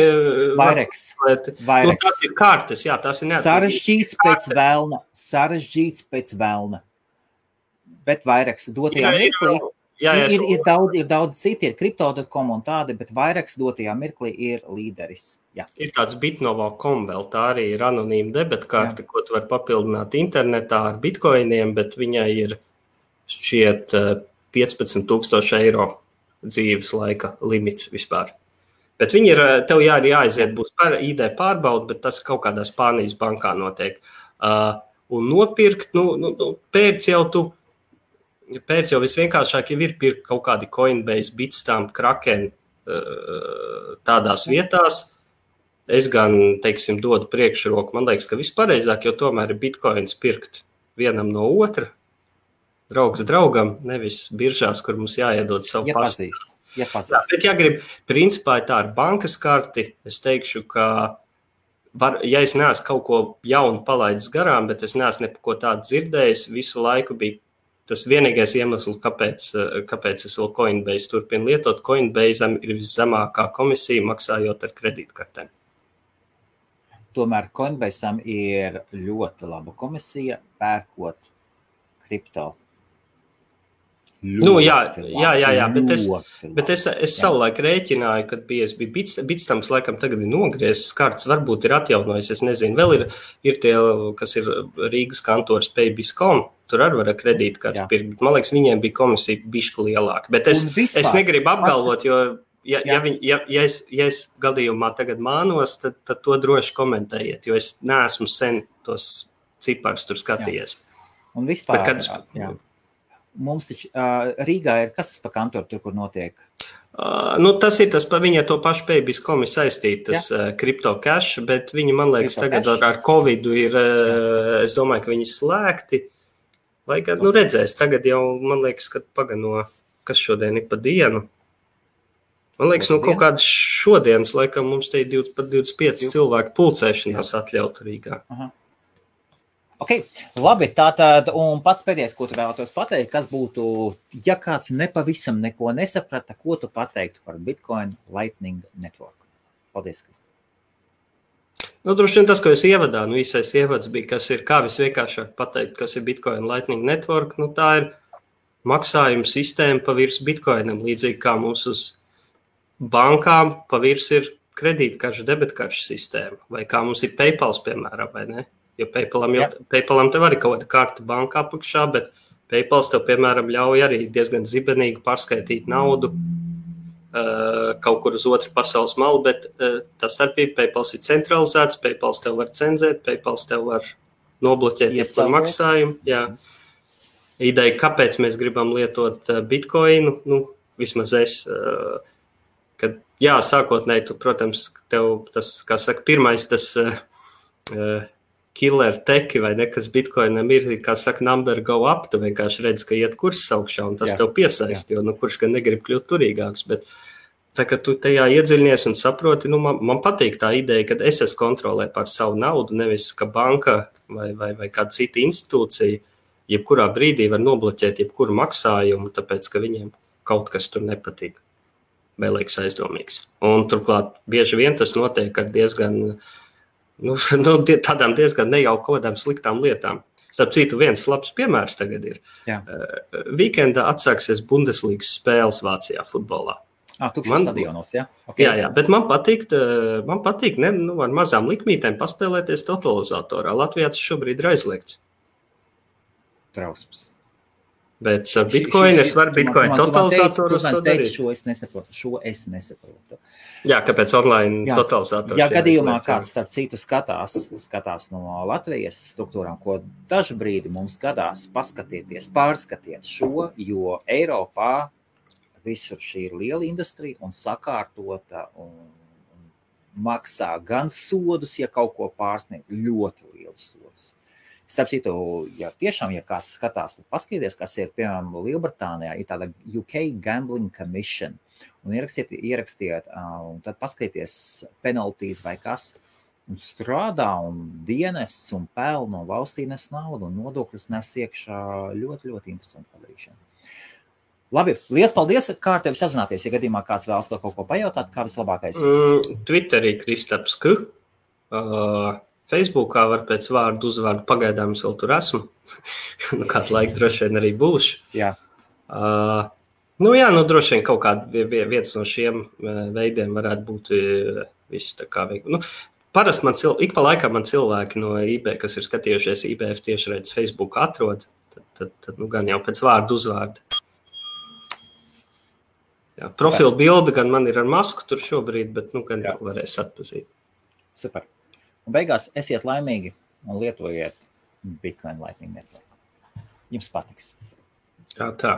Vaireks. Tas ir kārtas, jā, tas ir neatkarīgs. Sarežģīts pēc velna. Bet Vaireks dotajā mirklī ir daudz citi, ir Crypto.com un tādi, bet Vaireks dotajā mirklī ir līderis. Jā. Ir tāds Bitnovo.com vēl, tā arī ir anonīma debetkarte, ko tu var papildināt internetā ar bitcoiniem, bet viņai ir šķiet 15,000 eiro dzīves laika limits vispār. Bet viņi ir, tev jāaiziet, būs ID pārbauda, bet tas kaut kādā Spānijas bankā notiek. Un nopirkt, pēc jau visvienkāršāk jau ir pirkt kaut kādi Coinbase, Bitstamp, Kraken tādās vietās. Es gan, teiksim, dodu priekšroku. Man liekas, ka vispareizāk, jo tomēr ir bitcoins pirkt vienam no otra, draugs draugam, nevis biržās, kur mums jāiedod savu pastu. Bet, ja grib, principā tā ar bankas karti, es teikšu, ka ja es neesmu kaut ko jaunu palaidis garām, bet es neesmu neko tādu dzirdējis, visu laiku bija tas vienīgais iemesls, kāpēc es vēl Coinbase turpinu lietot. Coinbase'am ir viszemākā komisija maksājot ar kredītkartēm. Tomēr Coinbase'am ir ļoti laba komisija pērkot kripto. Bet es savulaik rēķināju, kad bija Bitstamps laikam tagad ir nogriezis kartes, varbūt ir atjaunojis, es nezinu, vēl ir tie, kas ir Rīgas kantors Paybis.com, tur arī var kredītkarti pirkt, bet man liekas, viņiem bija komisija bišķi lielāka, bet es negribu apgalvot, jo ja es gadījumā tagad mānos, tad to droši komentējiet, jo es neesmu sen tos ciparus tur skatījies. Un vispār, mums taču Rīgā ir, kas tas pa kantoru tur, kur notiek? Tas ir tas, viņa to pašu Paybis.com ir saistītas Crypto Cash, bet viņi, man liekas, tagad ar Covidu ir, es domāju, ka viņi slēgti. Lai gan, redzēs, tagad jau, man liekas, kad pagano, kas šodien ir pa dienu. Man liekas, kaut kādas šodienas, laikam, mums te ir pat 25 cilvēku pulcēšanās atļautu Rīgā. Aha. Ok, labi, tātad, un pats pēdējais, ko tu vēlētos pateikt, kas būtu, ja kāds nepavisam neko nesaprata, ko tu pateiktu par Bitcoin Lightning Network? Paldies, Kristi. Droši vien tas, ko es ievadā, īsais ievads bija, kas ir, kā visvienkāršāk pateikt, kas ir Bitcoin Lightning Network, tā ir maksājuma sistēma pa virs Bitcoinam, līdzīgi kā mums uz bankām pa virs ir kredītkaršu, debetkaršu sistēma, vai kā mums ir PayPals, piemēram, vai ne? Jo PayPalam tev arī kaut kāda karta bankā apakšā, bet PayPals tev, piemēram, ļauj arī diezgan zibenīgi pārskaitīt naudu kaut kur uz otru pasaules malu, bet tas starpība, PayPals ir centralizēts, PayPals tev var cenzēt, PayPals tev var nobloķēt par maksājumu. Jā. Ideja, kāpēc mēs gribam lietot Bitcoinu, vismaz es, kad, sākotnēji, tu, protams, tev tas, kā saka, pirmais tas killer teki vai ne, kas Bitcoinam ir, kā saka, number go up, tu vienkārši redz, ka iet kurs augšā, un tas tev piesaist, jo, kurš gan negrib kļūt turīgāks, bet tā, ka tu tajā iedziļinies un saproti, man patīk tā ideja, kad es kontrolē par savu naudu, nevis, ka banka vai kāda cita institūcija, jebkurā brīdī var nobloķēt jebkuru maksājumu, tāpēc, ka viņiem kaut kas tur nepatīk, vai liekas aizdomīgs. Un turklāt bieži vien tas notiek ar diezgan tādām diezgan nejauku kaut kādām sliktām lietām. Starp citu, viens labs piemērs tagad ir. Weekendā atsāksies Bundeslīgas spēles Vācijā futbolā. Tukšos stadionos, jā? Okay. Jā, bet man patīk ar mazām likmītēm paspēlēties totalizatorā. Latvijā tas šobrīd ir aizliegts. Trausmas. Bet ar Bitcoin es varu Bitcoin totalizatorus to darīt. Šo es nesaprotu. Jā, kāpēc online totalizators? Ja gadījumā kāds starp citu skatās no Latvijas struktūrām, ko dažu brīdi mums gadās pārskatiet šo, jo Eiropā visur šī ir liela industrija un sakārtota un maksā gan sodus, ja kaut ko pārsniedz, ļoti liels sodus. Starp citu, ja kāds skatās, tad paskaties, kas ir, piemēram, Lielbritānijā, ir tāda UK Gambling Commission, un ierakstiet, un tad paskaties penaltīs vai kas, un strādā, un dienests, un peln, un valstī nes naudu, un nodokļus nes iekšā ļoti, ļoti interesanti padarīšana. Labi, liels paldies, kā ar tevi sazināties, ja gadījumā kāds vēlas to kaut ko pajautāt, kā vislabākais? Twitterī Kristaps K. Facebookā var pēc vārdu uzvārdu, pagaidām es vēl tur esmu. Kādu laiku droši vien arī būšu. Jā. Droši vien kaut kāda viens no šiem veidiem varētu būt viss tā kā veikt. Parasti ik pa laikam man cilvēki no IB, kas ir skatījušies IBF tiešraides Facebook atrod, tad gan jau pēc vārdu uzvārdu. Jā, profilu bilde gan man ir ar masku tur šobrīd, bet gan jau varēs atpazīt. Super. Un beigās esiet laimīgi un lietojiet Bitcoin Lightning Network. Jums patiks. Jā, tā.